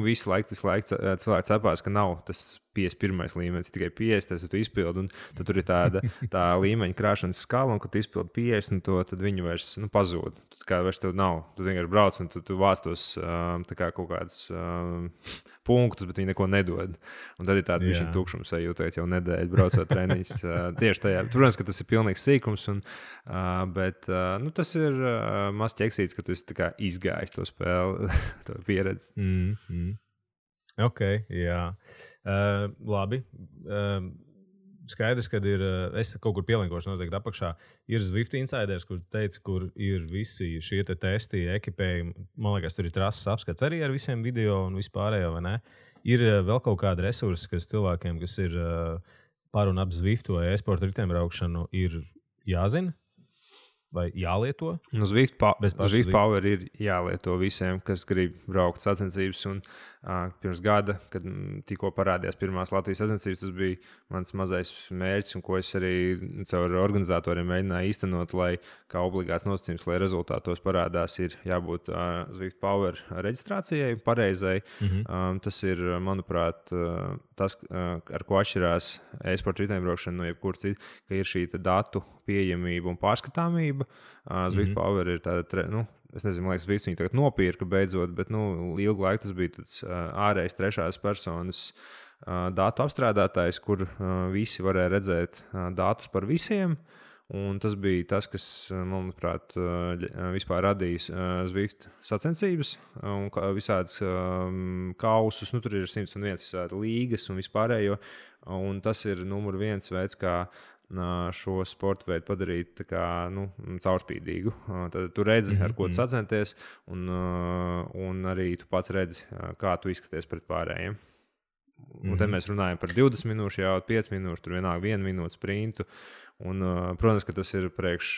visu laiku cilvēki cepās, ka nav tas 51. līmenis, tikai 50, tad tu izpildi, un tad tur ir tā līmeņa krāšanas skala, un kad tu izpildi 50, tad viņi vairs pazūd. Kā vairs tev nav. Tu vienkārši brauc, un tu vāc tos kaut kādus punktus, bet viņi neko nedod. Un tad ir tāda bišķiņa tukšums sajūtot jau nedēļu braucot treniņus. Tieši tajā. Protams, ka tas ir pilnīgs sīkums, bet tas ir maz ķeksīts, ka tu esi izgājis to spēli, to pieredzi. Ok, jā. Labi. Skaidrs, ka es kaut kur pielinkošu noteikti apakšā. Ir Zwift Insiders, kur teica, kur ir visi šie testi, ekipējumi. Man liekas, tur ir trases apskats arī ar visiem video un vispārējo, vai ne? Ir vēl kaut kāda resursa, kas cilvēkiem, kas ir par un ap Zwiftu vai e-sporta riteņbraukšanu, ir jāzina vai jālieto? Zwift Power ir jālieto visiem, kas grib braukt sacensības. Un pirms gada, kad tikko parādījās pirmās Latvijas sacensības, tas bija mans mazais mērķis, un ko es arī caur organizatoriem mēģināju īstenot, lai kā obligāts nosacījums, lai rezultātos parādās, ir jābūt Zwift Power reģistrācijai pareizai. Tas ir, manuprāt, tas, ar ko atšķirās e-sporta riteņbraukšana no jebkuras citas, ka ir šī datu pieejamība un pārskatāmība. Zwift Power ir tāda es nezinu, man liekas, visi viņi tagad nopirka beidzot, bet ilgu laiku tas bija tāds ārējs trešās personas datu apstrādātājs, kur visi varēja redzēt datus par visiem. Un tas bija tas, kas, manuprāt, vispār radīja Zwift sacensības un visādas kausus. Tur ir 101 visādi līgas un vispārējo. Un tas ir numur viens veids, kā šo sporta veidu padarīt kā, caurspīdīgu. Tad tu redzi, ar ko tu sacenties, un arī tu pats redzi, kā tu izskaties pret pārējiem. Un tad mēs runājam par 20 minūšu, jau 5 minūšu, tur vienalga 1 minūte sprintu. Un, protams, ka tas ir priekš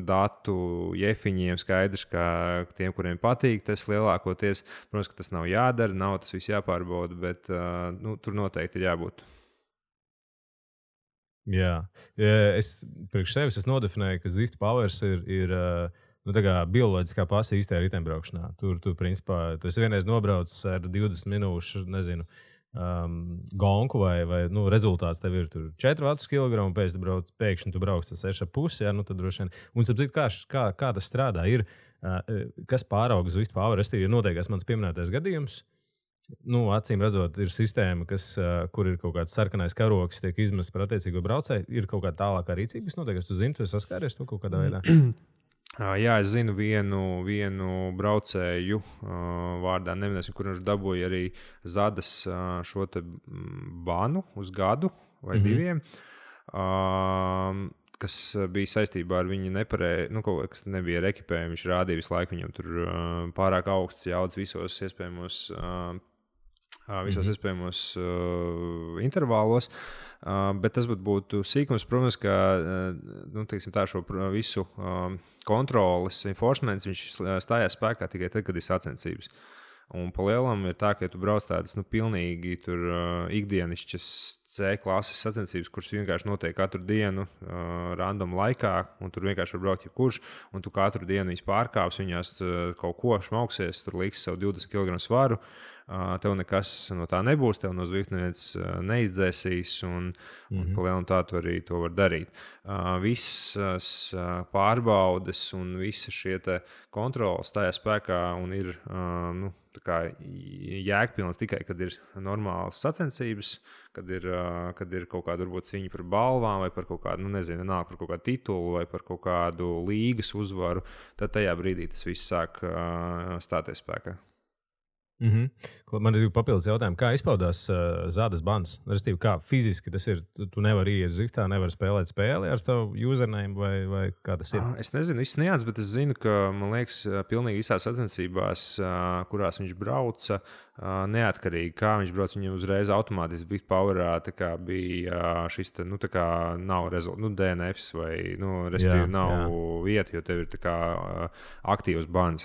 datu jefiņiem skaidrs, ka tiem, kuriem patīk tas lielākoties, protams, ka tas nav jādara, nav tas viss jāpārbauda, bet tur noteikti ir jābūt. Jā, es priekš sevis nodefinēju, ka Zwift Powers ir bioloģiskā pasa īstajā riteņbraukšanā. Tur principā, tu esi vienreiz nobraucis ar 20 minūšu, nezinu, gonku vai rezultāts tev ir 4 vatus kilogramu, pēkšņi tu brauc ar 6,5, jā, tad droši vien. Un sapratu, kā tas strādā, kas pārauga Zwift Power, ir noteikts mans pieminētais gadījums. Acīm redzot, ir sistēma, kur ir kaut kāds sarkanais karoks, tiek izmests par attiecīgo braucēju, ir kaut kāda tālākā rīcība, kas notiek, tu zini, tu esi saskāries to kaut kādā veidā. Jā, es zinu vienu braucēju vārdā, neminēsim, kur viņš dabūja arī Zadas šo te banu uz gadu vai 2, kas bija saistībā ar viņu nepareizi, kaut kas nebija ar ekipējumu. Viņš rādīja visu laiku viņam tur pārāk augsts jaudas visos iespējamos intervālos. Bet tas būtu sīkums, protams, ka šo visu kontroles enforcements viņš stājās spēkā tikai tad, kad ir sacensības. Un pa lielam ir tā, ka ja tu brauc tādas pilnīgi ikdienišķas C klases sacensības, kuras vienkārši notiek katru dienu random laikā, un tur vienkārši var braukt jebkurš, un tu katru dienu viņas pārkāps, viņās kaut ko šmauksies, tur liks savu 20 kg svaru. Tev nekas no tā nebūs, tev no Zwift neviens neizdzēsīs, un pa lielam tā tu arī to var darīt. Visas pārbaudes un visi šie kontroles stājās spēkā un ir jēgpilns tikai, kad ir normālas sacensības, kad ir kaut kāda varbūt cīņa par balvām vai par kaut kādu, par kaut kādu titulu vai par kaut kādu līgas uzvaru, tad tajā brīdī tas viss sāk stāties spēkā. Man ir papildus jautājumi, kā izpaudās Zadas bans? Restīvi, kā fiziski tas ir? Tu nevari iet Zwiftā, nevari spēlēt spēli ar tavu username vai kā tas ir? Es nezinu, viss nians, bet es zinu, ka, man liekas, pilnīgi visās sacensībās, kurās viņš brauca, neatkarīgi kā viņš brauc, viņam uzreiz automātiski Zwift Powerā bija šis nav DNFs vai, restīvi nav vieta, jo tev ir aktīvs bans.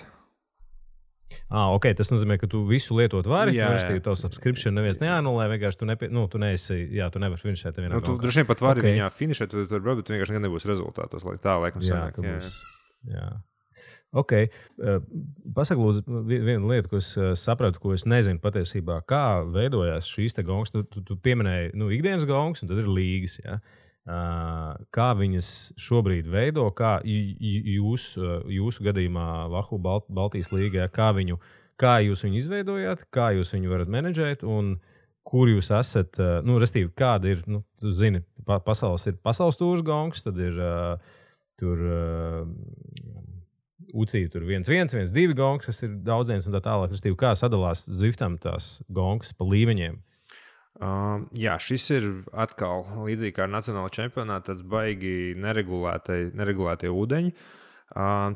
Ok, tas nozīmē, ka tu visu lietot vari. Tavu subscription neviens neanulē, vienkārši tu nevari finišēt. Tu droši vien pat vari viņā finišēt, tu vari, bet tu vienkārši nebūs rezultātos. Tā laikam sanāk. Jā. Ok. Pasaka, lūdzu, vienu lietu, ko es sapratu, ko es nezinu patiesībā. Kā veidojās šīs te gongas? Tu pieminēji ikdienas gongas, un tad ir līgas, jā. Kā viņas šobrīd veido, kā jūsu gadījumā Vahu Baltijas līgā, kā jūs viņu izveidojāt, kā jūs viņu varat menedžēt un kur jūs esat, restīvi, kāda ir, tu zini, pasaules tūrs gongs, tad ir tur UCI tur 1-1, 1-2 gongs, kas ir daudziems un tā tālāk, restīvi, kā sadalās Zwiftam tās gongas pa līmeņiem? Jā, šis ir atkal līdzīgi kā ar nacionālo čempionātu, tāds baigi neregulētie ūdeņi.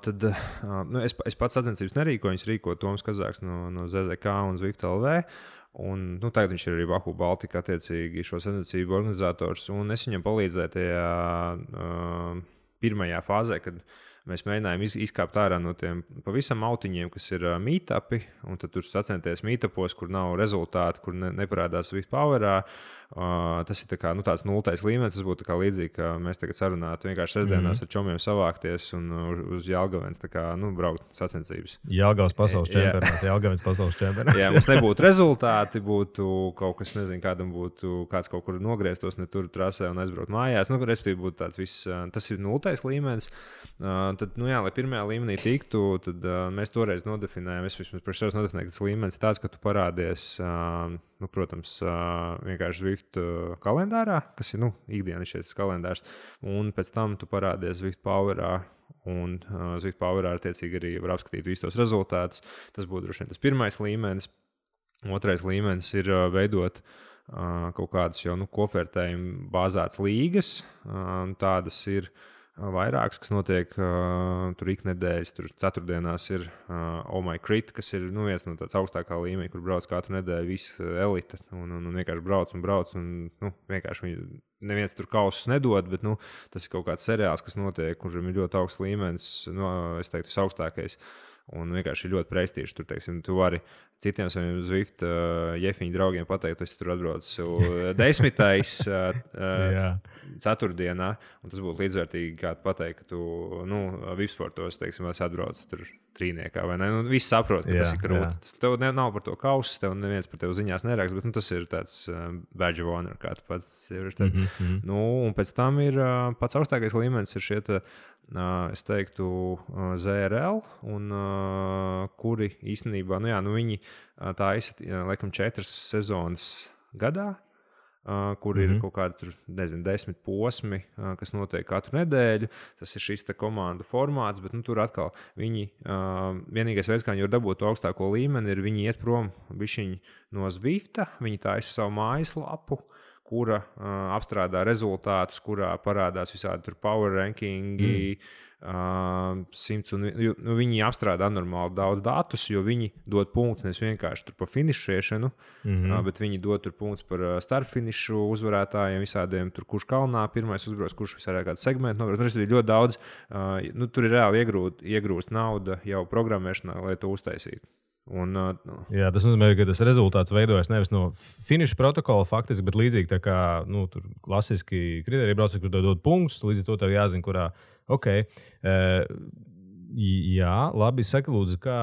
Tad es pats sacensības nerīkoju, viņas rīko Toms Kazāks no ZZK un Zwift LV. Un, tagad viņš ir arī Vahu Baltika attiecīgi šo sacensību organizators. Un es viņam palīdzēju tajā pirmajā fāzē, kad mēs mēģinājām izkāpt ārā no tiem pavisam autiņiem, kas ir meetupi, un tad tur sacenties meetupos, kur nav rezultāti, kur neparādās Zwift Powerā. Tas ir tāds nultais līmenis. Tas būtu līdzīgi, ka mēs tagad sarunātu vienkārši sestdienās ar čomiem savākties un uz Jelgavens braukt sacensības. Jelgavas pasaules čempionāts, Jelgavens pasaules čempionāts. Jā, mums nebūtu rezultāti, būtu kaut kas, nezinu, kādam būtu kāds kaut kur nogrieztos ne tur trasē un aizbraukt mājās. Respektīvi būtu tāds viss, tas ir nultais līmenis. Tad, lai pirmajā līmenī tiktu, tad mēs toreiz nodefinējām, es vismaz par sevi nodefinēju, ka tas līmenis ir tāds, ka tu parādies, protams, vienkārši Zwift kalendārā, kas ir ikdienas šis kalendārs, un pēc tam tu parādies Zwift Powerā, un Zwift Powerā attiecīgi arī var apskatīt visus tos rezultātus. Tas būtu droši vien tas pirmais līmenis. Otrais līmenis ir veidot kaut kādas jau kopvērtējumu bāzētas līgas. Tādas ir vairākas, kas notiek tur iknedēļas. Tur ceturtdienās ir Oh My Crit, kas ir viens no tāds augstākā līmeņa, kur brauc katru nedēļu visa elite. Un vienkārši brauc. Un vienkārši neviens tur kausus nedod, bet tas ir kaut kāds seriāls, kas notiek, kuram ir ļoti augsts līmenis. Es teiktu, visaugstākais. Un vienkārši ir ļoti prestižs. Tur, teiksim, tu vari citiem saviem Zwift jefiņu draugiem pateikt, tu esi tur atbraucis 10. ceturtdienā, un tas būtu līdzvērtīgi, kā pateikt, ka tu Vipsportos, teiksim, esi atbraucis tur trīniekā, vai ne? Viss saprot, ka tas ir krūti. Tev nav par to kausus, tev neviens par tevi ziņās neraksta, bet tas ir tāds badge of honor, kā tu pats ir. Un pēc tam ir pats augstākais līmenis ir šie es teiktu, ZRL, un kuri īstenībā, viņi taisa, laikam, 4 sezonas gadā, kur ir kaut kādi, 10 posmi, kas notiek katru nedēļu. Tas ir šis komandu formāts, bet tur atkal viņi, vienīgais veids, kā viņi var dabūt to augstāko līmeni, ir viņi iet prom bišķiņi no Zwifta, viņi taisa savu mājaslapu, kura apstrādā rezultātus, kurā parādās visādi tur power rankingi, 100, un viņi apstrādā anormāli daudz datus, jo viņi dod punktus nevis vienkārši tur par finišēšanu, bet viņi dod tur punktus par starpfinišu uzvarētājiem, visādiem tur, kurš kalnā pirmais uzbrauc, kurš visādā kāds segmenti nobrauc. Tur ir ļoti daudz, tur ir reāli iegrūst nauda jau programmēšanā, lai to uztaisītu. Jā, tas nozīmē, ka tas rezultāts veidojas nevis no finiša protokola, faktiski, bet līdzīgi tā kā tur klasiski kriteriji brauc, kur dod punktus, līdz ar to tev jāzina, kurā. Jā, labi, saka, lūdzu, kā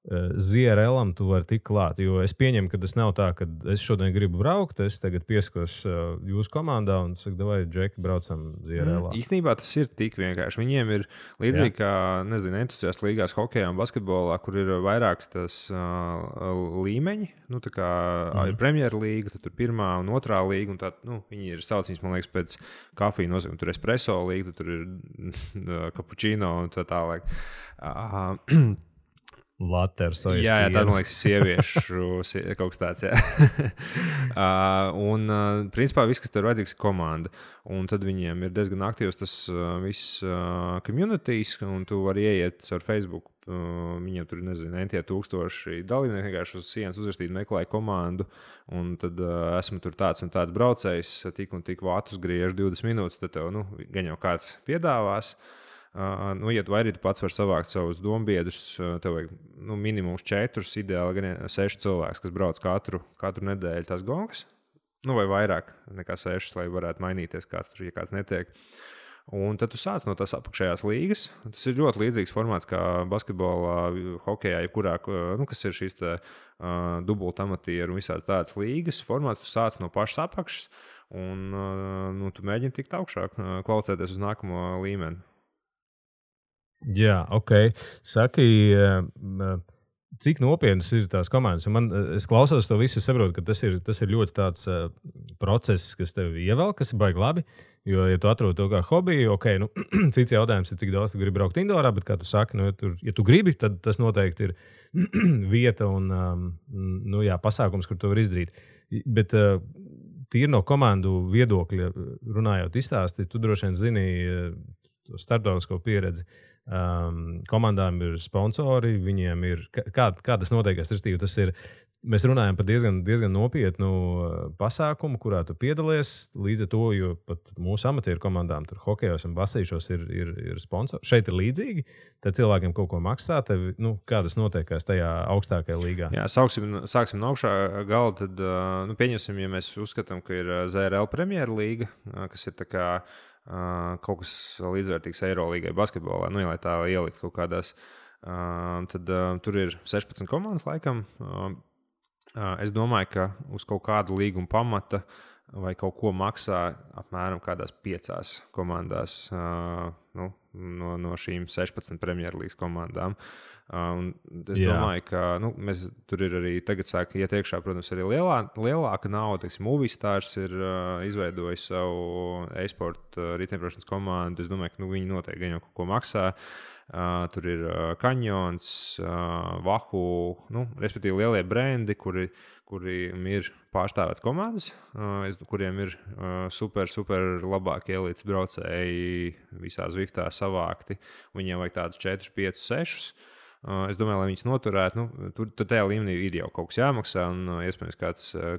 ZRL-am tu vari tikt klāt, jo es pieņemu, ka tas nav tā, ka es šodien gribu braukt, es tagad pieskos jūsu komandā un saku, vai Džeki, braucam ZRL-ā. Īstenībā tas ir tik vienkārši. Viņiem ir līdzīgi kā, entuziastu līgās hokejā un basketbolā, kur ir vairāks tas līmeņi, tā kā ir Premjera līga, tad tur pirmā un otrā līga, un tā, viņi ir saucījums, man liekas, pēc kafiju nozīmē, tur espresso līga, tur ir cappuccino un tā tālāk. Laters, jā, tā, man liekas, sieviešu kaut kas tāds, un, principā, viss, kas tev ir vajadzīgs, ir komanda. Un tad viņiem ir diezgan aktīvs tas viss communities, un tu vari ieiet ar Facebook. Viņiem tur, entie tūkstoši dalībnieki, vienkārši uz sienas uzrakstīt, meklēja komandu, un tad esmu tur tāds un tāds braucējs, tik un tik vātus griež 20 minūtes, tad tev, gan jau kāds piedāvās. Ja tu arī pats vari savākt savus dombiedrus, tev vajag minimums 4, ideāli gan 6 cilvēks, kas brauc katru nedēļu tās gongas, vai vairāk nekā 6, lai varētu mainīties kāds tur, ja kāds netiek. Un tad tu sāc no tās apakšējās līgas. Tas ir ļoti līdzīgs formāts kā basketbolā, hokejā, jebkurā, kas ir šīs dubultamatieru un visādas tādas līgas formāts. Tu sāc no pašas apakšas un tu mēģini tikt augšā, kvalificēties uz nākamo līmeni. Jā, Saki, cik nopietnas ir tās komandas? Es klausos to visu, saprotu, ka tas ir ļoti tāds process, kas tev ievēl, kas ir baigi labi. Jo, ja tu atrod to kā hobiju, cits jautājums ir, cik daudz tu gribi braukt indorā, bet, kā tu saki, ja tu gribi, tad tas noteikti ir vieta un pasākums, kur to var izdarīt. Bet tīri no komandu viedokļa runājot izstāsti, tu droši vien zini, starptautisko pieredzi. Komandām ir sponsori, viņiem ir. Kā tas notiekās? Tas ir. Mēs runājam par diezgan nopietnu pasākumu, kurā tu piedalies. Līdz ar to, jo pat mūsu amatieru komandām, tur hokejos un basīšos ir sponsori. Šeit ir līdzīgi. Tad cilvēkiem kaut ko maksā. Tev, kā tas notiekās tajā augstākajā līgā? Jā, sāksim no augšā gala. Tad, pieņemsim, ja mēs uzskatām, ka ir ZRL Premjerlīga, kas ir tā kā kaut kas līdzvērtīgs Eirolīgai basketbolā, ja lai tā ielikt kaut kādās. Tad tur ir 16 komandas laikam. Es domāju, ka uz kaut kādu līgumu pamata vai kaut ko maksā apmēram kādās 5 komandās no šīm 16 Premjerlīgas komandām. Es domāju, ka mēs tur ir arī tagad sāk iet iekšā, protams, arī lielāka nauda. Movistārs ir izveidojis savu e-sporta riteņbraukšanas komandu. Es domāju, ka viņi noteikti gan jau kaut ko maksā. Tur ir Kanjons, Vahu, respektīvi lielie brendi, kuriem ir pārstāvēts komandas, kuriem ir super labākie elites braucēji visā Zviftā savākti. Viņiem vajag tādus 4, 5, 6. Es domāju, lai viņus noturētu, tur tajā līmenī ir jau kaut kas jāmaksā, un iespējams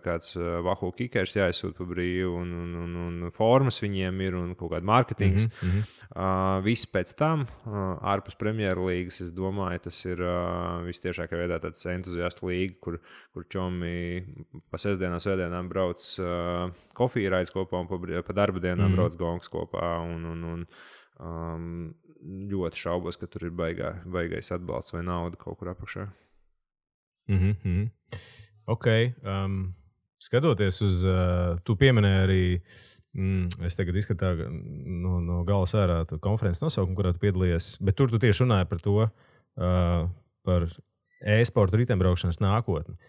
kāds Vahu kikers jāizsūt pa brīvu, un formas viņiem ir, un kaut kāda mārketings. Viss pēc tam, ārpus Premjerlīgas, es domāju, tas ir vistiešākā veidā tāds entuziastu līga, kur čomi pa sestdienām, svētdienām brauc kofiju raids kopā, un pa darba dienām brauc gongs kopā, un ļoti šaubos, ka tur ir baigais atbalsts vai nauda kaut kur apakšā. Ok. Skatoties uz, tu pieminēji arī, es tagad izskatāju no gala sārā konferences nosaukumu, kurā tu piedalījies, bet tur tu tieši runāji par to, par e-sporta riteņbraukšanas nākotni.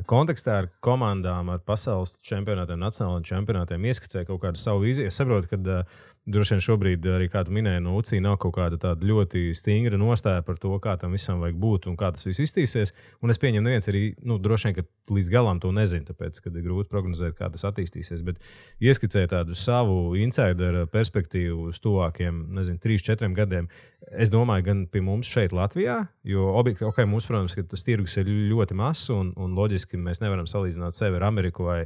Kontekstā ar komandām, ar pasaules čempionātiem, nacionālajiem čempionātiem ieskicēja kaut kādu savu vīziju. Es saprotu, ka droši vien šobrīd, arī kā tu minēji, no UCI nav kaut kāda tāda ļoti stingra nostāja par to, kā tam visam vajag būt un kā tas viss iztīsies. Un es pieņemu, neviens arī, droši vien, ka līdz galam to nezina, tāpēc, ka ir grūti prognozēt, kā tas attīstīsies. Bet ieskicēja tādu savu insideru perspektīvu uz tuvākiem, 3-4 gadiem. Es domāju, gan pie mums šeit Latvijā, jo mums, protams, ka tas tirgus ir ļoti mazs un loģiski mēs nevaram salīdzināt sevi ar Ameriku vai,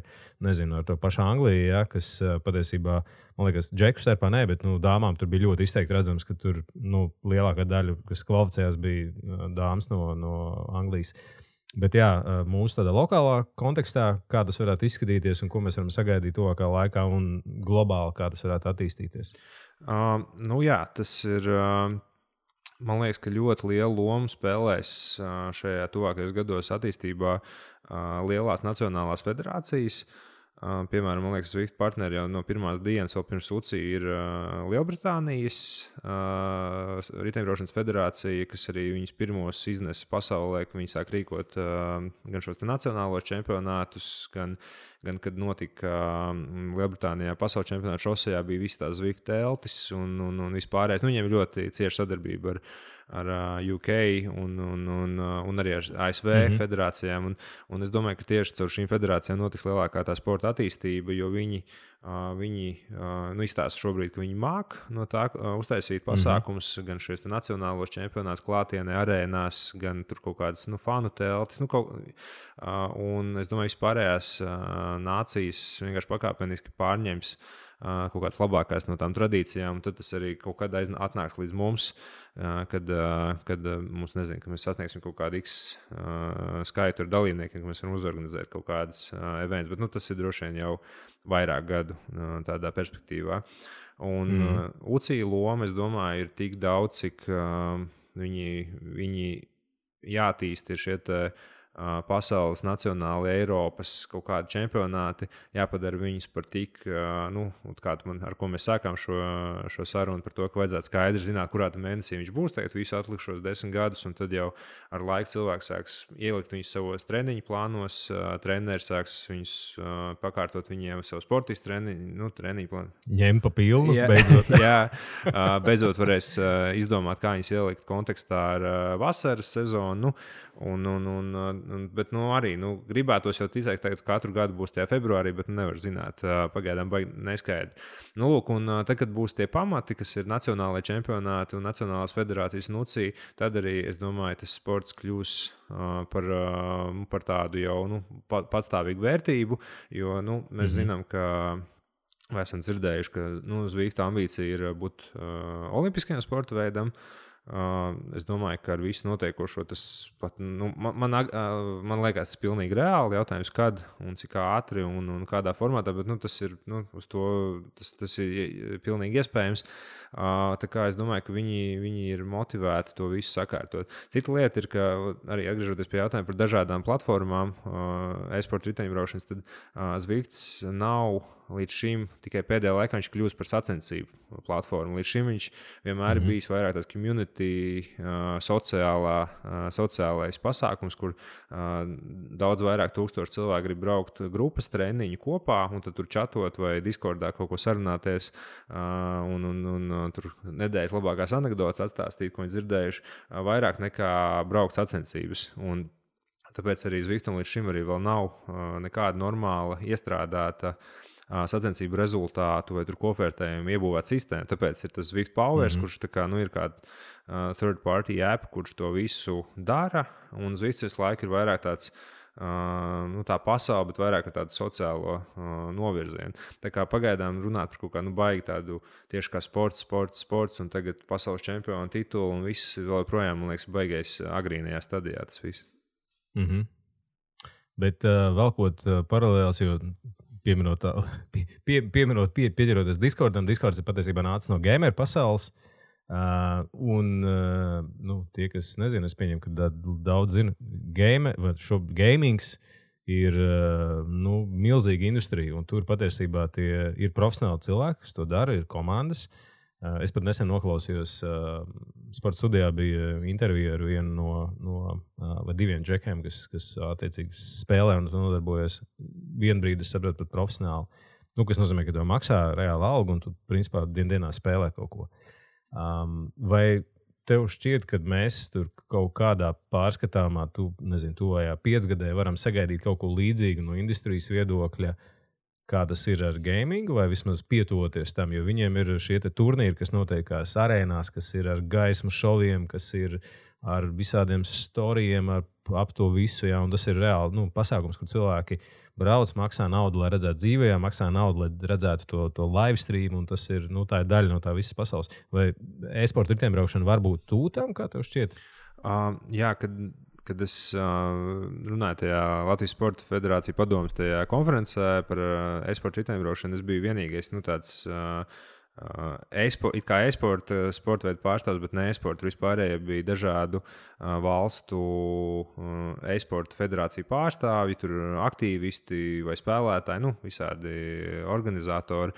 ar to pašu Angliju, ja, kas patiesībā, man liekas, džeku starpā ne, bet dāmām tur bija ļoti izteikti redzams, ka tur lielākā daļa, kas kvalificējās, bija dāmas no Anglijas. Bet jā, mūsu tādā lokālā kontekstā, kā tas varētu izskatīties un ko mēs varam sagaidīt tuvākā laikā un globāli, kā tas varētu attīstīties? Jā, tas ir... Man liekas, ka ļoti lielu lomu spēlēs šajā tuvākajos gados attīstībā lielās nacionālās federācijas. Piemēram, man liekas, Zwift partneri jau no pirmās dienas, vēl pirms UCI, ir Lielbritānijas riteņbraukšanas federācija, kas arī viņus pirmos iznesa pasaulē, ka viņi sāk rīkot gan šos nacionālos čempionātus, gan kad notika Lielbritānijā pasaules čempionāta šosejā, bija visas tās Zwift teltis un vispārējais. Viņiem ļoti cieša sadarbība ar UK un arī ar ASV federācijām. Un es domāju, ka tieši caur šīm federācijām notiks lielākā tā sporta attīstība, jo viņi izstāsta šobrīd, ka viņi māk no tā uztaisīt pasākumus, gan šīs nacionālos čempionātus klātienē, arēnās, gan tur kaut kādas fanu teltis. Un es domāju, vispārējās nācijas vienkārši pakāpeniski pārņems kaut kādas labākās no tām tradīcijām, un tad tas arī kaut kad atnāks līdz mums, kad mums, ka mēs sasniegsim kaut kādu X skaitu ar dalībniekiem, ka mēs varam uzorganizēt kaut kādas events, bet tas ir droši vien jau vairāk gadu tādā perspektīvā. Un UCI loma, es domāju, ir tik daudz, cik viņi jātīst ir šie pasaules, nacionāli, Eiropas kaut kādi čempionāti, jāpadara viņus par tik, ar ko mēs sākām šo sarunu par to, ka vajadzētu skaidri zināt, kurā mēnesī viņš būs, tagad visu atlikušos 10 gadus, un tad jau ar laiku cilvēks sāks ielikt viņus savos treniņu plānos, treneris sāks viņus pakārtot viņiem savu sportistu treniņu plānu. Ņem pa pilnu, beidzot. Jā, beidzot varēs izdomāt, kā viņus ielikt kontekstā ar vasaras sezonu, un Bet arī gribētos jau ticēt, ka katru gadu būs tajā februārī, bet nevar zināt. Pagaidām baigi neskaidri. Lūk, un tad, kad būs tie pamati, kas ir nacionālajie čempionāti un nacionālās federācijas nucī, tad arī, es domāju, tas sports kļūs par tādu jau patstāvīgu vērtību, jo mēs zinām, ka mēs esam dzirdējuši, ka Zvifta ambīcija ir būt olimpiskajam sporta veidam. Es domāju, ka ar visu notiekošo tas pat, man liekas, tas ir pilnīgi reāli jautājums, kad un cik ātri un kādā formātā, bet tas ir, uz to, tas ir pilnīgi iespējams. Tā kā es domāju, ka viņi ir motivēti to visu sakārtot. Cita lieta ir, ka arī atgriežoties pie jautājuma par dažādām platformām, e-sporta riteņbraukšanas, tad Zvifts nav līdz šim tikai pēdējā laikā viņš kļūst par sacensību platformu. Līdz šim viņš vienmēr ir bijis vairāk tāds community, sociālais pasākums, kur daudz vairāk tūkstoši cilvēku grib braukt grupas treniņu kopā un tad tur čatot vai Discordā kaut ko sarunāties un tur nedēļas labākās anekdotas atstāstīt, ko viņi dzirdējuši, vairāk nekā braukt sacensības. Un tāpēc arī Zviftam līdz šim arī vēl nav nekāda normāla iestrādāta sacensību rezultātu vai kopvērtējumu iebūvēta sistēma. Tāpēc ir tas Zwift Powers, kurš ir kāda third party app, kurš to visu dara. Un Zwift visu laiku ir vairāk tāds tā pasaule, bet vairāk ar tādu sociālo novirzienu. Tā kā pagaidām runāt par kaut kādu baigi tādu tieši kā sports, un tagad pasaules čempionu titulu un viss vēl projām, man liekas, baigais agrīnajā stadijā tas viss. Bet velkot paralēls, jo pieķeroties Discordam, Discords ir patiesībā nācis no gamer pasaules. Tie, kas nezina, es pieņemu, ka daudz zina, gamings ir milzīga industrija, un tur patiesībā tie ir profesionāli cilvēki, kas to dara, ir komandas. Es pat nesen noklausījos, sporta studijā bija intervija ar vienu vai diviem džekiem, kas attiecīgi spēlē un nodarbojas. Vienu brīdi es saprotu pat profesionāli, kas nozīmē, ka tev maksā reāla alga un tu principā dienā spēlē kaut ko. Vai tev šķiet, ka mēs tur kaut kādā pārskatāmā, tuvajā 5-gadē varam sagaidīt kaut ko līdzīgu no industrijas viedokļa, kā tas ir ar gamingu, vai vismaz pietuvoties tam, jo viņiem ir šie turnīri, kas notiekās arēnās, kas ir ar gaismu šoviem, kas ir ar visādiem storijiem, ap to visu, jā, un tas ir reāli pasākums, kur cilvēki brauc, maksā naudu, lai redzētu dzīvē, maksā naudu, lai redzētu to live stream, un tas ir, tā ir daļa no tā visas pasaules. Vai e-sporta riteņbraukšana var būt tūtam, kā tev šķiet? Jā, kad es runāju tajā Latvijas Sporta Federācija padomes tajā konferencē par e-sporta riteņbraukšanu, es biju vienīgais, tāds kā e-sporta sporta veidu pārstāvs, bet ne e-sporta. Vispārējie bija dažādu valstu e-sporta federāciju pārstāvji, tur aktīvisti vai spēlētāji, visādi organizatori.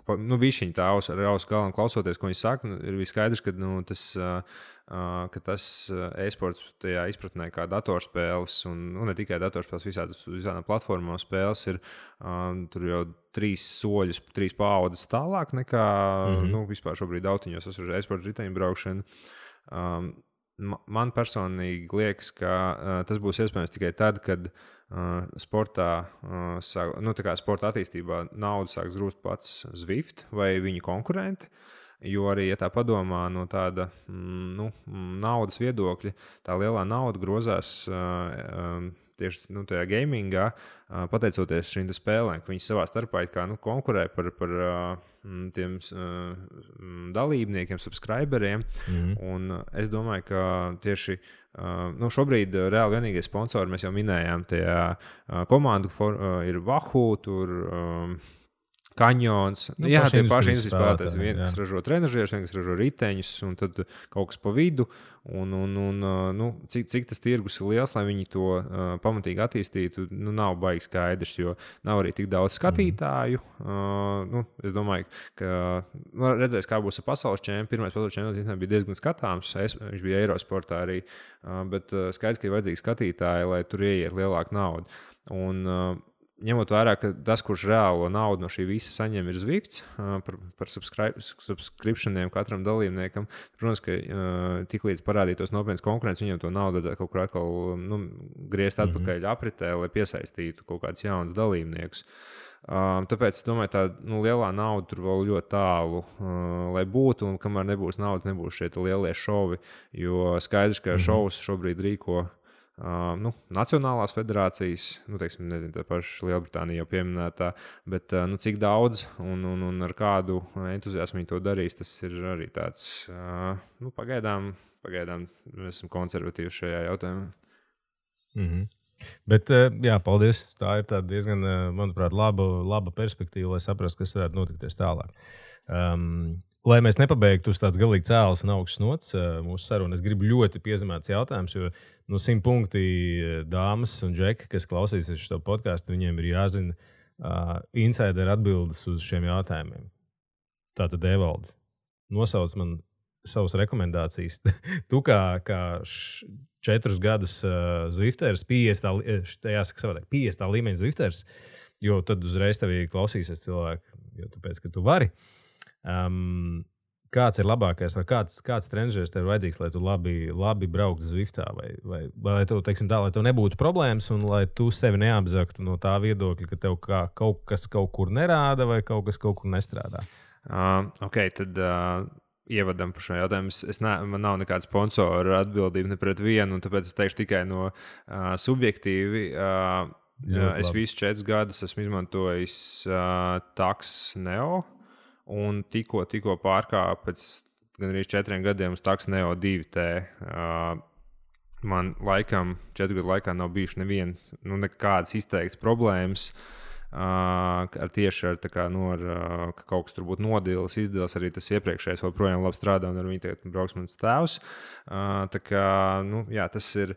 Bišķiņi tā ar ausu galam klausoties, ko viņi saka, ir skaidrs, ka tas e-sports tajā izpratnē kā datorspēles, un ne tikai datorspēles, visādām platformām spēles ir tur jau 3 soļus, 3 paaudzes tālāk nekā vispār šobrīd autiņos esoša e-sporta riteņbraukšana. Man personīgi liekas, ka tas būs iespējams tikai tad, kad sportā, sporta attīstībā naudu sāks grūst pats Zwift vai viņa konkurenti. Jo arī, ja tā padomā no tāda naudas viedokļa, tā lielā nauda grozās tieši tajā gamingā, pateicoties šīm spēlēm, ka viņi savā starpā konkurē par tiem dalībniekiem, subscriberiem. Un es domāju, ka tieši šobrīd reāli vienīgie sponsori, mēs jau minējām, tajā komandu ir Wahoo, tur Kanjons. Jā, tie paši industrijas spēlētāji. Viens, kas ražo trenažierus, viens, kas ražo riteņus, un tad kaut kas pa vidu. Cik tas tirgus ir liels, lai viņi to pamatīgi attīstītu, nav baigi skaidrs, jo nav arī tik daudz skatītāju. Es domāju, ka redzēs, kā būs ar pasaules čempionu. Pirmais pasaules čempions bija diezgan skatāms. Viņš bija Eirosportā arī, bet skaidrs, ka ir vajadzīgi skatītāji, lai tur ieiet lielāka nauda. Un ņemot vērā, ka tas, kurš reālo naudu no šī visa saņem, ir Zwifts par subscriptioniem katram dalībniekam. Protams, ka tiklīdz parādītos nopietnas konkurences, viņiem to naudu vajadzētu kaut kur atkal griezt atpakaļ apritē, lai piesaistītu kaut kādus jaunus dalībniekus. Tāpēc es domāju, tā lielā nauda tur vēl ļoti tālu, lai būtu, un kamēr nebūs naudas, nebūs šie lielie šovi, jo skaidrs, ka šovus šobrīd rīko nacionālās federācijas, teiksim, nezinu, tā paša Lielbritānija jau pieminētā, bet cik daudz un ar kādu entuziasmu viņi to darīs, tas ir arī tāds, pagaidām mēs esam konservatīvi šajā jautājumā. Bet, jā, paldies. Tā ir diezgan, manuprāt, laba perspektīva, lai saprastu, kas varētu notikties tālāk. Lai mēs nepabeigtu uz tāds galīgi cēlas un augsts nots mūsu sarunu, es gribu ļoti piezemēts jautājums, jo 100 punkti dāmas un džeki, kas klausīsies šo podcastu, viņiem ir jāzina insider atbildes uz šiem jautājumiem. Tātad, Evaldi, nosauc man savas rekomendācijas. Tu kā 4 gadus Zwifters, 50. līmeņa Zwifters, jo tad uzreiz tevī klausīsies cilvēki, jo tāpēc, ka tu vari. Kāds ir labākais, vai kāds treneris tev ir vajadzīgs, lai tu labi brauktu Zwiftā, vai lai tu, teiksim tā, lai tev nebūtu problēmas un lai tu sevi neapzaktu no tā viedokļa, ka tev kaut kas kaut kur nerāda vai kaut kas kaut kur nestrādā? Tad ievadam par šo jautājumu. Man nav nekāda sponsora atbildība ne pret vienu, un tāpēc es teikšu tikai no subjektīvi. Es visus 4 gadus esmu izmantojis Taks Neo. Un tikko pārkāpu pēc gandrīz 4 gadiem uz Taks Neo 2T. Man laikam 4 gadu laikā nav bijuši nekādas izteiktas problēmas tieši ar ka kaut kas tur būtu nodils, izdils. Arī tas iepriekšējais joprojām labi strādā, un ar viņu tagad brauks mans tēvs. Tas ir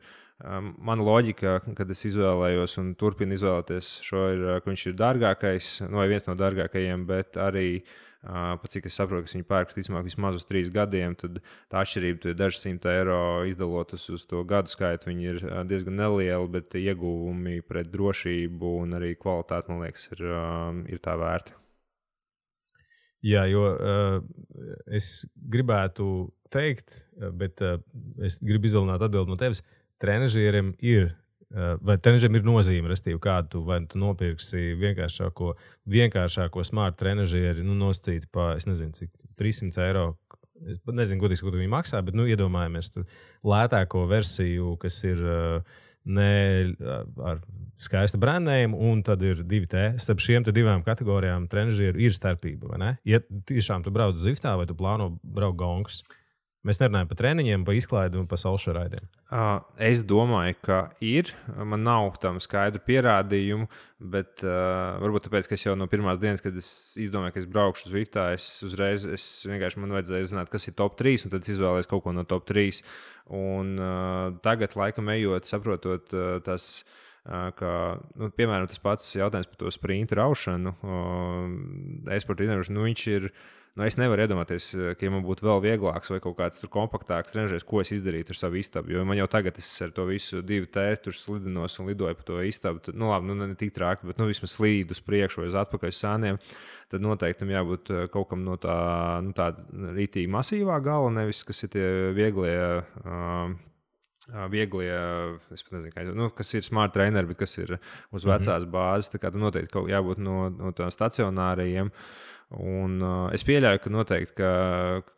mana loģika, kad es izvēlējos un turpinu izvēlēties šo, ka viņš ir dārgākais, vai viens no dārgākajiem, bet arī pat cik es saprotu, ka viņi pērk vismaz uz 3 gadiem, tad tā atšķirība ir dažas €100 izdalot uz to gadu skaitu. Viņi ir diezgan nelieli, bet ieguvumi pret drošību un arī kvalitāti, man liekas, ir tā vērti. Jā, jo es gribētu teikt, bet es gribu izvēlēt atbildi no tevis. Trenežieriem ir. Vai trenežiem ir nozīme, restīvi, kādu vai tu nopirksi vienkāršāko smart trenežieri, nosacīt pa, es nezinu, cik €300. Es nezinu, godīgi, ko viņi maksā, bet iedomājamies tur lētāko versiju, kas ir ne ar skaistu brandējumu, un tad ir 2T. Starp šiem 2 kategorijām trenežieru ir starpība, vai ne? Ja tiešām tu brauc Zwiftā vai tu plāno braukt gongas? Mēs nerunājam par treniņiem, par izklaidi un par salšaraidiem. Es domāju, ka ir. Man nav tam skaidru pierādījumu, bet varbūt tāpēc, ka es jau no pirmās dienas, kad es izdomāju, ka es braukšu uz Zwiftā, vienkārši man vajadzēja zināt, kas ir top 3, un tad izvēlējos kaut ko no top 3. Un tagad, laikam ejot, saprotot tas, ka, piemēram, tas pats jautājums par to sprintu raušanu, e-sporta treniņošanu, viņš ir. Es nevaru iedomāties, ka ja man būtu vēl vieglāks vai kaut kāds kompaktāks treneris, ko es izdarītu ar savu istabu. Jo man jau tagad ar to visu 2T tur slidinos un lidoju pa to istabu. Tad, labi, ne tik traki, bet vismaz slīdu uz priekšu vai uz atpakaļ sāniem. Tad noteikti jābūt kaut kam no tā rītīgi masīvā gala, nevis kas ir tie vieglie, es pat nezinu, kas ir smart traineri, bet kas ir uz vecās bāzes. Tā kā noteikti jābūt no tādiem stacionāriem. Un es pieļauju, ka noteikti ka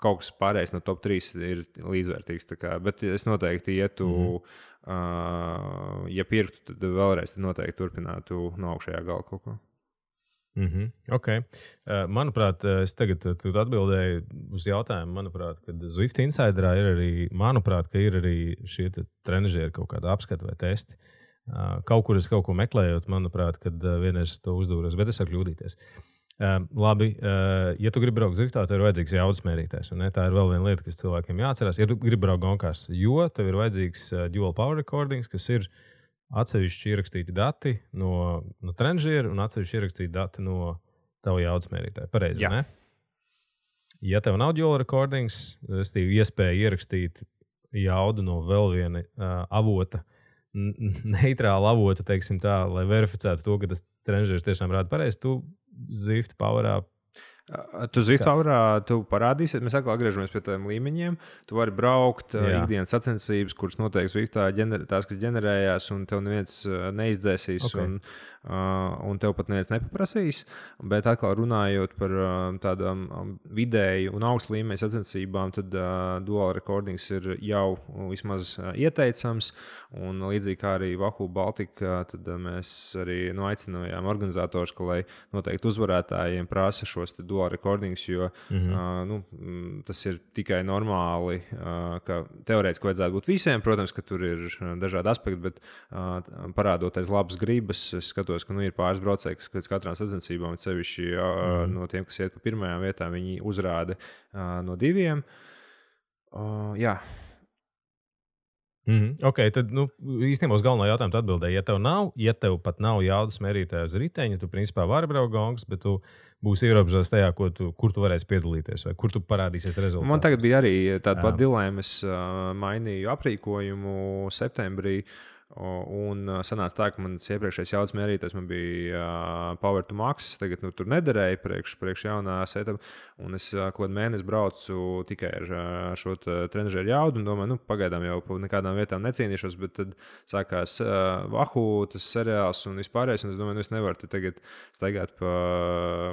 kaut kas pārējais no top 3 ir līdzvērtīgs. Bet es noteikti ietu, ja pirktu, tad vēlreiz noteikti turpinātu no augšējā gala kaut ko. Okay. Manuprāt, es tagad atbildēju uz jautājumu, manuprāt, kad Zwift Insiderā ir arī šie trenežieri kaut kāda apskata vai testi. Kaut kur es kaut ko meklējot, manuprāt, kad vienreiz to uzdūros, bet es varu kļūdīties. Labi, ja tu gribi braukt Zwiftā, tev ir vajadzīgs jaudas mērītājs. Tā ir vēl viena lieta, kas cilvēkiem jāatcerās. Ja tu gribi braukt gonkās, jo tev ir vajadzīgs dual power recordings, kas ir atsevišķi ierakstīti dati no trenežera un atsevišķi ierakstīti dati no tava jaudas mērītāja. Pareizi, ne? Ja tev nav dual recordings, iespēja ierakstīt jaudu no vēl viena avota, neitrālu avotu, teiksim tā, lai verificētu to, ka tas trenižers tiešām rāda pareizi, tu Zwift Powerā. Tu Zwift Powerā, tu parādīsi, mēs atkal atgriežamies pie tiem līmeņiem. Tu vari braukt ikdienas sacensības, kuras noteikti Zwiftā tās, kas ģenerējās, un tev neviens neizdzēsīs, un tev pat neviens nepaprasīs. Bet atkal runājot par tādām vidēju un augstu līmeņa sacensībām, tad dual recordings ir jau vismaz ieteicams. Un līdzīgi kā arī Wahoo Baltica, tad mēs arī aicinājām organizatorus, ka lai noteikti uzvarētājiem prasa šos dual recordings, jo tas ir tikai normāli, ka teorētiski vajadzētu būt visiem. Protams, ka tur ir dažādi aspekti, bet parādoties labas gribas, es skatos, ka ir pāris braucēji, kas pēc katrām sacensībām, sevišķi no tiem, kas iet pa pirmajām vietām, viņi uzrāda no 2. Jā. Ok, tad īstenībā uz galveno jautājumu atbildēji. Ja tev pat nav jaudas mērītāja uz riteņa, tu principā vari braukt gongas, bet tu būsi ierobežots tajā, kur tu varēsi piedalīties vai kur tu parādīsies rezultātus. Man tagad bija arī tāda pat dilēma. Es mainīju aprīkojumu septembrī. Un sanāca tā, ka mans iepriekšējais jaudas mērītājs man bija Power to Max. Tagad tur nederēja priekš jaunā setup. Un es kaut kādu mēnesi braucu tikai ar šo trenižeru jaudu. Un domāju, pagaidām jau pa nekādām vietām necīnīšos. Bet tad sākās Wahoo, tas seriāls un vispārējais. Un es domāju, es nevaru tagad staigāt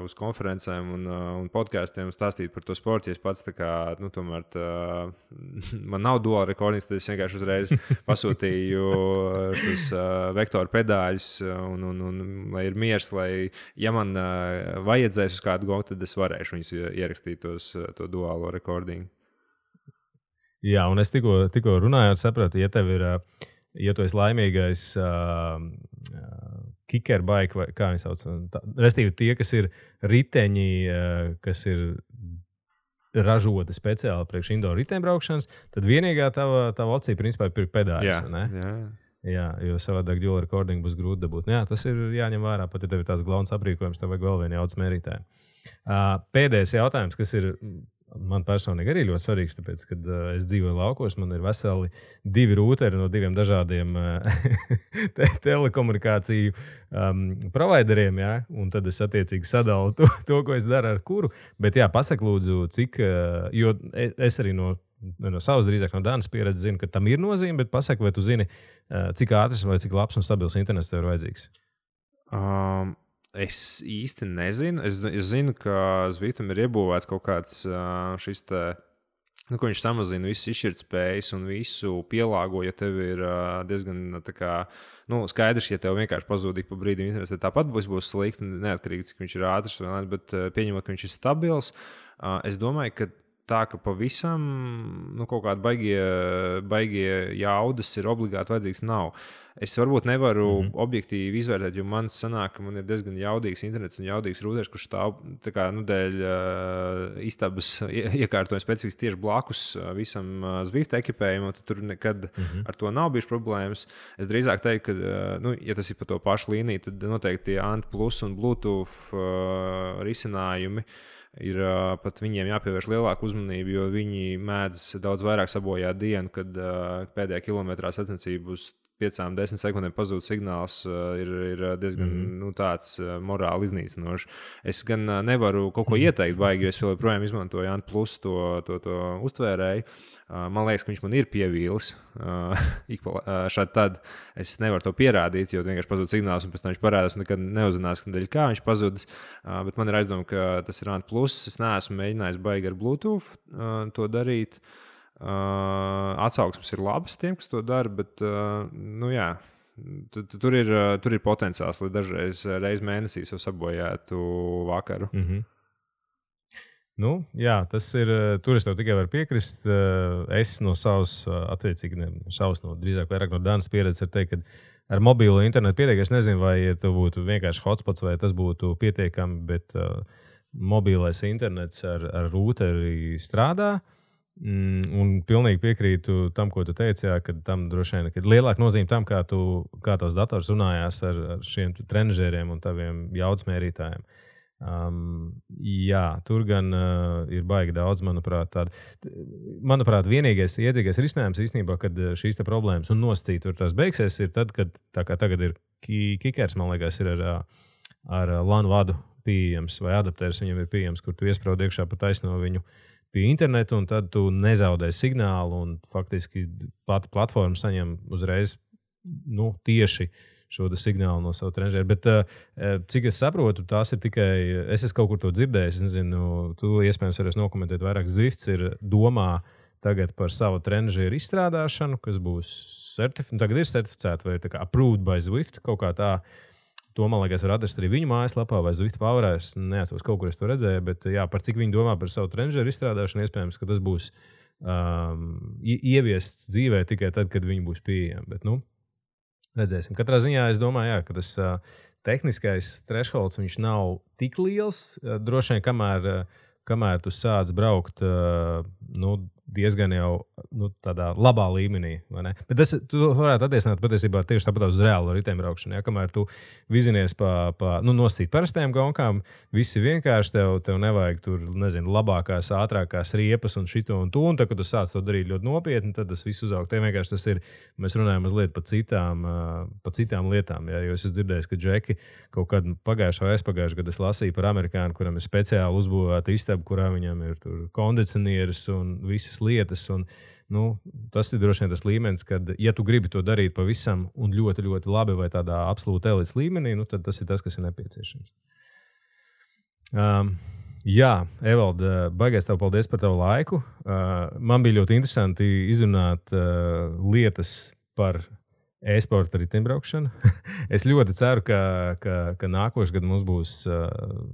uz konferencēm un podkāstiem un stāstīt par to sportu. Ja es pats tomēr man nav dual recordings, tad es vienkārši uzreiz pasūtīju šos vektoru pedāļus un lai ir miers, lai, ja man vajadzēs uz kādu gongu, tad es varēšu viņus ierakstīt to duālo recordingu. Jā, un es tikko runāju, sapratu, ja tev ir, ja tu esi laimīgais kikerbike, vai kā viņi sauc, restīvi tie, kas ir riteņi, kas ir ražota speciāli priekš indoor riteņbraukšanas, tad vienīgā tava opcija principā ir pirkt pedāļus, ne? Jā, jo savādāk dual recording būs grūti dabūt. Jā, tas ir jāņem vērā, pat ja tev ir tās glaunas aprīkojums, tev vajag vēl vienu jaudas mērītāju. Pēdējais jautājums, kas ir man personīgi arī ļoti svarīgs, tāpēc, kad es dzīvoju laukos, man ir veseli 2 rūteri no 2 dažādiem telekomunikāciju provideriem, jā, un tad es attiecīgi sadalu to, ko es daru ar kuru. Bet jā, pasak lūdzu, cik, jo es arī no savas, drīzāk no Dānas pieredzes zinu, ka tam ir nozīme, bet pasaka, vai tu zini, cik ātrs vai cik labs un stabils internets tev ir vajadzīgs? Es īsti nezinu. Es zinu, ka Zwiftam ir iebūvēts kaut kāds šis te, ko viņš samazina visas izšķirtspējas un visu pielāgo, ja tev ir diezgan tā kā, skaidrs, ja tev vienkārši pazūd ik pa brīdim internets, tad tāpat būs slikti, neatkarīgi, cik viņš ir ātrs vai ne, bet pieņemot, ka viņš ir stabils, es domāju, ka tā, ka pavisam kaut kādi baigie jaudas ir obligāti vajadzīgs nav. Es varbūt nevaru objektīvi izvērtēt, jo man sanāk, ka man ir diezgan jaudīgs internets un jaudīgs rūters, kurš stāv dēļ istabas iekārtojuma specifiski tieši blakus visam Zwift ekipējumam, tad tur nekad ar to nav bijušas problēmas. Es drīzāk teiktu, ka, ja tas ir pa to pašu līniju, tad noteikti Ant Plus un Bluetooth risinājumi ir pat viņiem jāpievērš lielāka uzmanība, jo viņi mēdz daudz vairāk sabojāt dienu, kad pēdējā kilometrā sacensību uz 5-10 sekundēm pazūd signāls, ir diezgan tāds morāli iznīcinošs. Es gan nevaru kaut ko ieteikt baigi, jo es joprojām izmantoju Ant Plus to uztvērēju. Man liekas, ka viņš man ir pievīlis. Šādi tad es nevaru to pierādīt, jo vienkārši pazūd signāls un pēc tam viņš parādās un nekad neuzinās, kā viņš pazudis. Bet man ir aizdoma, ka tas ir Ant Plus. Es neesmu mēģinājis baigi ar Bluetooth to darīt. Atsauksmes ir labas tiem, kas to dara, bet jā, tur ir potenciāls, lai dažreiz mēnesī jau sabojētu vakaru. Jā, tas ir. Tur es tev tikai varu piekrist. Es no savas, attiecīgi, drīzāk vairāk no Dānas pieredzes, var teikt, ka ar mobilo internetu pietiek. Es nezinu, vai tu būtu vienkārši hotspots, vai tas būtu pietiekami, bet mobilais internets ar rūteri strādā. Un pilnīgi piekrītu tam, ko tu teici, jā, ka tam droši vien ir lielāka nozīme tam, kā tavs dators runājās ar šiem trenižieriem un taviem jaudas mērītājiem. Jā, tur gan ir baigi daudz, manuprāt, vienīgais iedzīgais risinājums īstenībā, kad šīs problēmas un nosacīt tur tās beigsies, ir tad, kad tā kā tagad ir kikers, man liekas, ir ar LAN vadu pieejams vai adaptērs viņam ir pieejams, kur tu iespraud iekšā pa taisno viņu pie internetu, un tad tu nezaudē signālu, un faktiski pati platforma saņem uzreiz tieši šo signālu no savu trenežera. Bet, cik es saprotu, tās ir tikai, es esmu kaut kur to dzirdējis, es nezinu, tu iespējams varēsi nokomentēt vairāk. Zwifts ir domā tagad par savu trenežeru izstrādāšanu, kas būs tagad ir certificēta vai tā kā approved by Zwift, kaut kā tā. To, man liekas, var atrast arī viņu mājaslapā vai Zwift Powerā. Es neatceros, kaut kur es to redzēju, bet jā, par cik viņi domā par savu trenežeru izstrādāšanu, iespējams, ka tas būs ieviests dzīvē tikai tad, kad viņi būs pieejami. Bet, redzēsim. Katrā ziņā es domāju, jā, ka tas tehniskais thresholds viņš nav tik liels. Droši vien, kamēr tu sāc braukt diezgan jau tādā labā līmenī. Bet tu varētu attiecināt patiesībā tieši tāpat uz reālo riteņbraukšanu. Ja? Kamēr tu vizinies nosacīt parastajām gonkām, viss ir vienkārši, tev nevajag tur, nezinu, labākās, ātrākās riepas un šito un to. Un tad, kad tu sāc to darīt ļoti nopietni, tad tas viss uzaug. Te vienkārši tas ir, mēs runājam mazliet par citām lietām. Ja? Jo es dzirdēju, ka Džeki kaut kad aizpagājušajā gadā es lasīju par amerikānu, kuram ir speciāli uzbūvēta istaba, kurā viņam ir tur kondicionieris un visas lietas. Un, tas ir droši vien tas līmenis, kad, ja tu gribi to darīt pavisam un ļoti, ļoti labi vai tādā absolūti elites līmenī, tad tas ir tas, kas ir nepieciešams. Jā, Evald, baigais tev paldies par tavu laiku. Man bija ļoti interesanti izrunāt lietas par e-sporta riteņbraukšanu. Es ļoti ceru, ka nākošais gads mums būs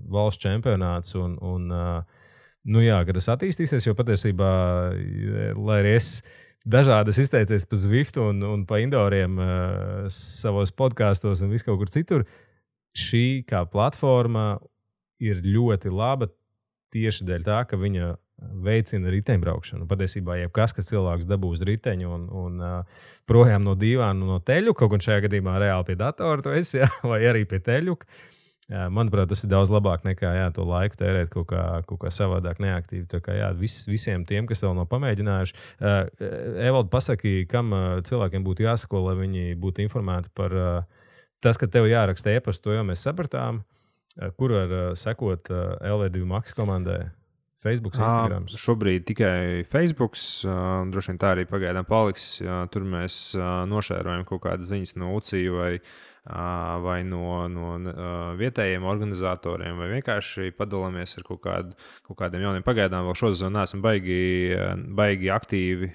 valsts čempionāts un kad tas attīstīsies, jo patiesībā, lai arī es dažādi izteicies par Zwift un pa indoriem savos podkastos un visu kaut kur citur, šī kā platforma ir ļoti laba tieši dēļ tā, ka viņa veicina riteņbraukšanu. Patiesībā jebkas, kas cilvēks dabū uz riteņu un projām no dīvāna, no teļuka, kaut gan šajā gadījumā reāli pie datora tu esi, vai arī pie teļuka. Manuprāt, tas ir daudz labāk nekā to laiku tērēt kaut kā savādāk neaktīvi. Tā kā visiem tiem, kas vēl nav pamēģinājuši. Evald, pasaki, kam cilvēkiem būtu jāsako, lai viņi būtu informēti par tas, ka tev jāraksta e-pastu, to jau mēs sapratām. Kur var sekot LV2 Max komandai? Facebook, Instagram. Šobrīd tikai Facebook. Droši vien tā arī pagaidām paliks. Tur mēs nošērojam kaut kādas ziņas no UCI vai no vietējiem organizatoriem, vai vienkārši padalāmies ar kaut kādiem jauniem. Pagaidām vēl šo sezonu neesam baigi aktīvi,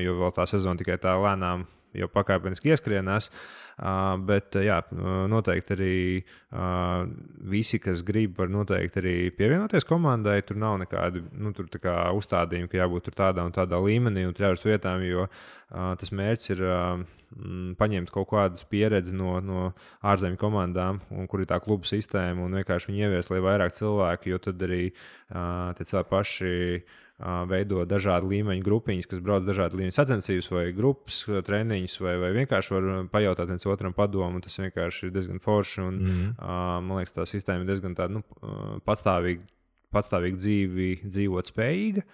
jo vēl tā sezona tikai tā lēnām jau pakāpeniski ieskrienās. Bet jā, noteikti arī visi, kas grib, var noteikti arī pievienoties komandai. Tur nav nekādi uzstādījumi, ka jābūt tur tādā un tādā līmenī un jābūt vietām, jo tas mērķis ir paņemt kaut kādas pieredzi no ārzemju komandām, kur ir tā kluba sistēma, un vienkārši viņi ievies, lai vairāk cilvēki, jo tad arī tie cilvēki paši veido dažādu līmeņu grupiņas, kas brauc dažādu līmeņu sacensības vai grupas treniņus, vai vienkārši var pajautāt viens otram padomu, un tas vienkārši ir diezgan forši, un man liekas, tā sistēma ir diezgan tāda, patstāvīgi dzīvot spējīga.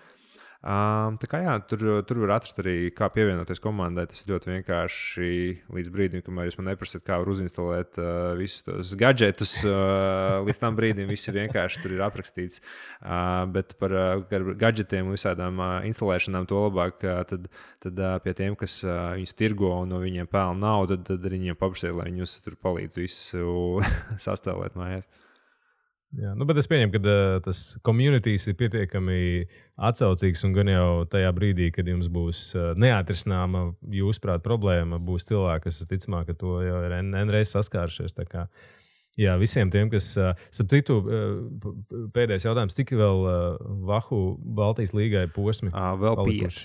Tā kā jā, tur var atrast arī, kā pievienoties komandai. Tas ir ļoti vienkārši līdz brīdim, kamēr jūs man neprasat, kā var uzinstalēt visus tos gadžetus. Līdz tam brīdim viss ir vienkārši tur ir aprakstīts. Bet par gadžetiem un visādām instalēšanām to labāk, tad pie tiem, kas viņus tirgo un no viņiem pelna naudu, tad arī viņiem paprasiet, lai viņi jūs tur palīdz visu sastāvēt mājās. Jā, bet es pieņemu, ka tas communities ir pietiekami atsaucīgs un gan jau tajā brīdī, kad jums būs neatrisināma jūsuprāt problēma, būs cilvēki, kas ticamāk, ka to jau ir N-reiz saskāršies. Tā kā, jā, visiem tiem, kas, starp citu, pēdējais jautājums, cik vēl Vahu Baltijas līgai posmi? Vēl 5.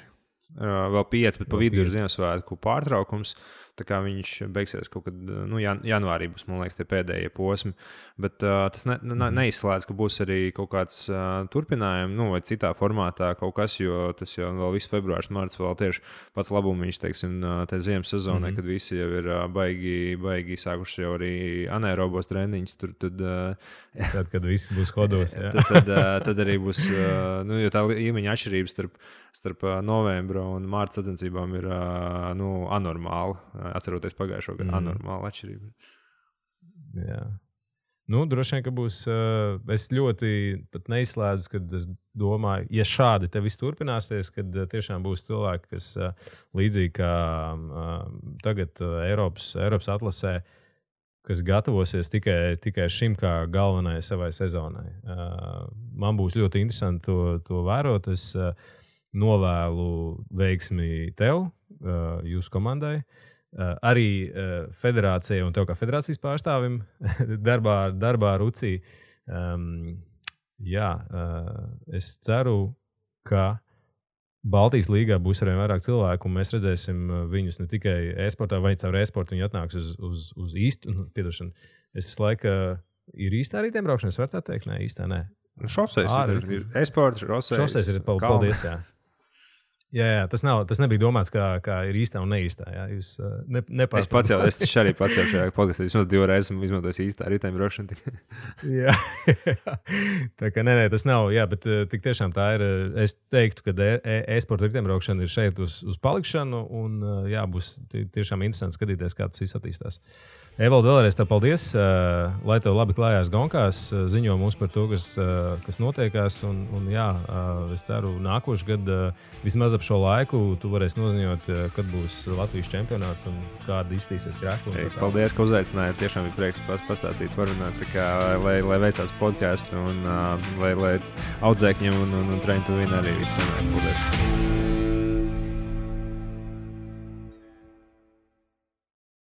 Vēl 5, bet pa vidu ir Ziemassvētku pārtraukums. Tā kā viņš beigsies kaut kad janvārī, būs, man liekas, tie pēdējie posmi. Bet tas neizslēdz, ka būs arī kaut kāds turpinājums, vai citā formātā kaut kas, jo tas jau vēl viss februārs, marts vēl tieši pats labumiņš, teiksim, te ziemas sezonē, kad visi jau ir baigi sākuši jau arī anaerobos treniņus. Tad, kad viss būs hodos. tad arī būs, jo tā līmeņa atšķirības starp novembra un mārta sacensībām ir anormāla. Atceroties pagājušo gadu, anormāla atšķirība. Jā. Droši vien, ka būs. Es ļoti neizslēdzu, kad es domāju, ja šādi te viss turpināsies, kad tiešām būs cilvēki, kas līdzīgi kā tagad Eiropas atlasē, kas gatavosies tikai šim kā galvenajai savai sezonai. Man būs ļoti interesanti to vērot. Es novēlu veiksmi tev, jūsu komandai, arī federācijai un tev kā federācijas pārstāvim darbā Rucī. Es ceru, ka Baltijas līgā būs arvien vairāk cilvēku, un mēs redzēsim viņus ne tikai e-sportā, vai caur e-sportu viņi atnāks uz īstu, piedošanu. Es laiku ir īstā riteņbraukšana, es varu tā teikt? Nē, īstā nē. Šoseis ir e-sports, šoseis ir paldies, jā. Jā, tas nebija domāts, kā ir īstā un neīstā. Jā. Jūs nepārspēlējat. Es arī pats jau šajā podkastā vismaz 2 reizes esmu izmantojis īstā riteņbraukšanu. Jā, tā kā nē, tas nav. Jā, bet tik tiešām tā ir. Es teiktu, ka e-sporta riteņbraukšana ir šeit uz palikšanu. Un jā, būs tiešām interesanti skatīties, kā tas viss attīstās. Evalde, vēlreiz tev paldies. Lai tev labi klājās gonkās. Ziņo mums par to, kas notiekās. Un jā, es ceru, nākošu gadu vismaz šo laiku tu varēsi noziņot, kad būs Latvijas čempionāts un kāda izstīsies krēkla. Paldies, ka uzaicinājāt. Tiešām bija prieks pastāstīt, parunāt, lai veicās podcastu un lai audzēkņiem un Train to Win arī viss sanāk. Paldies.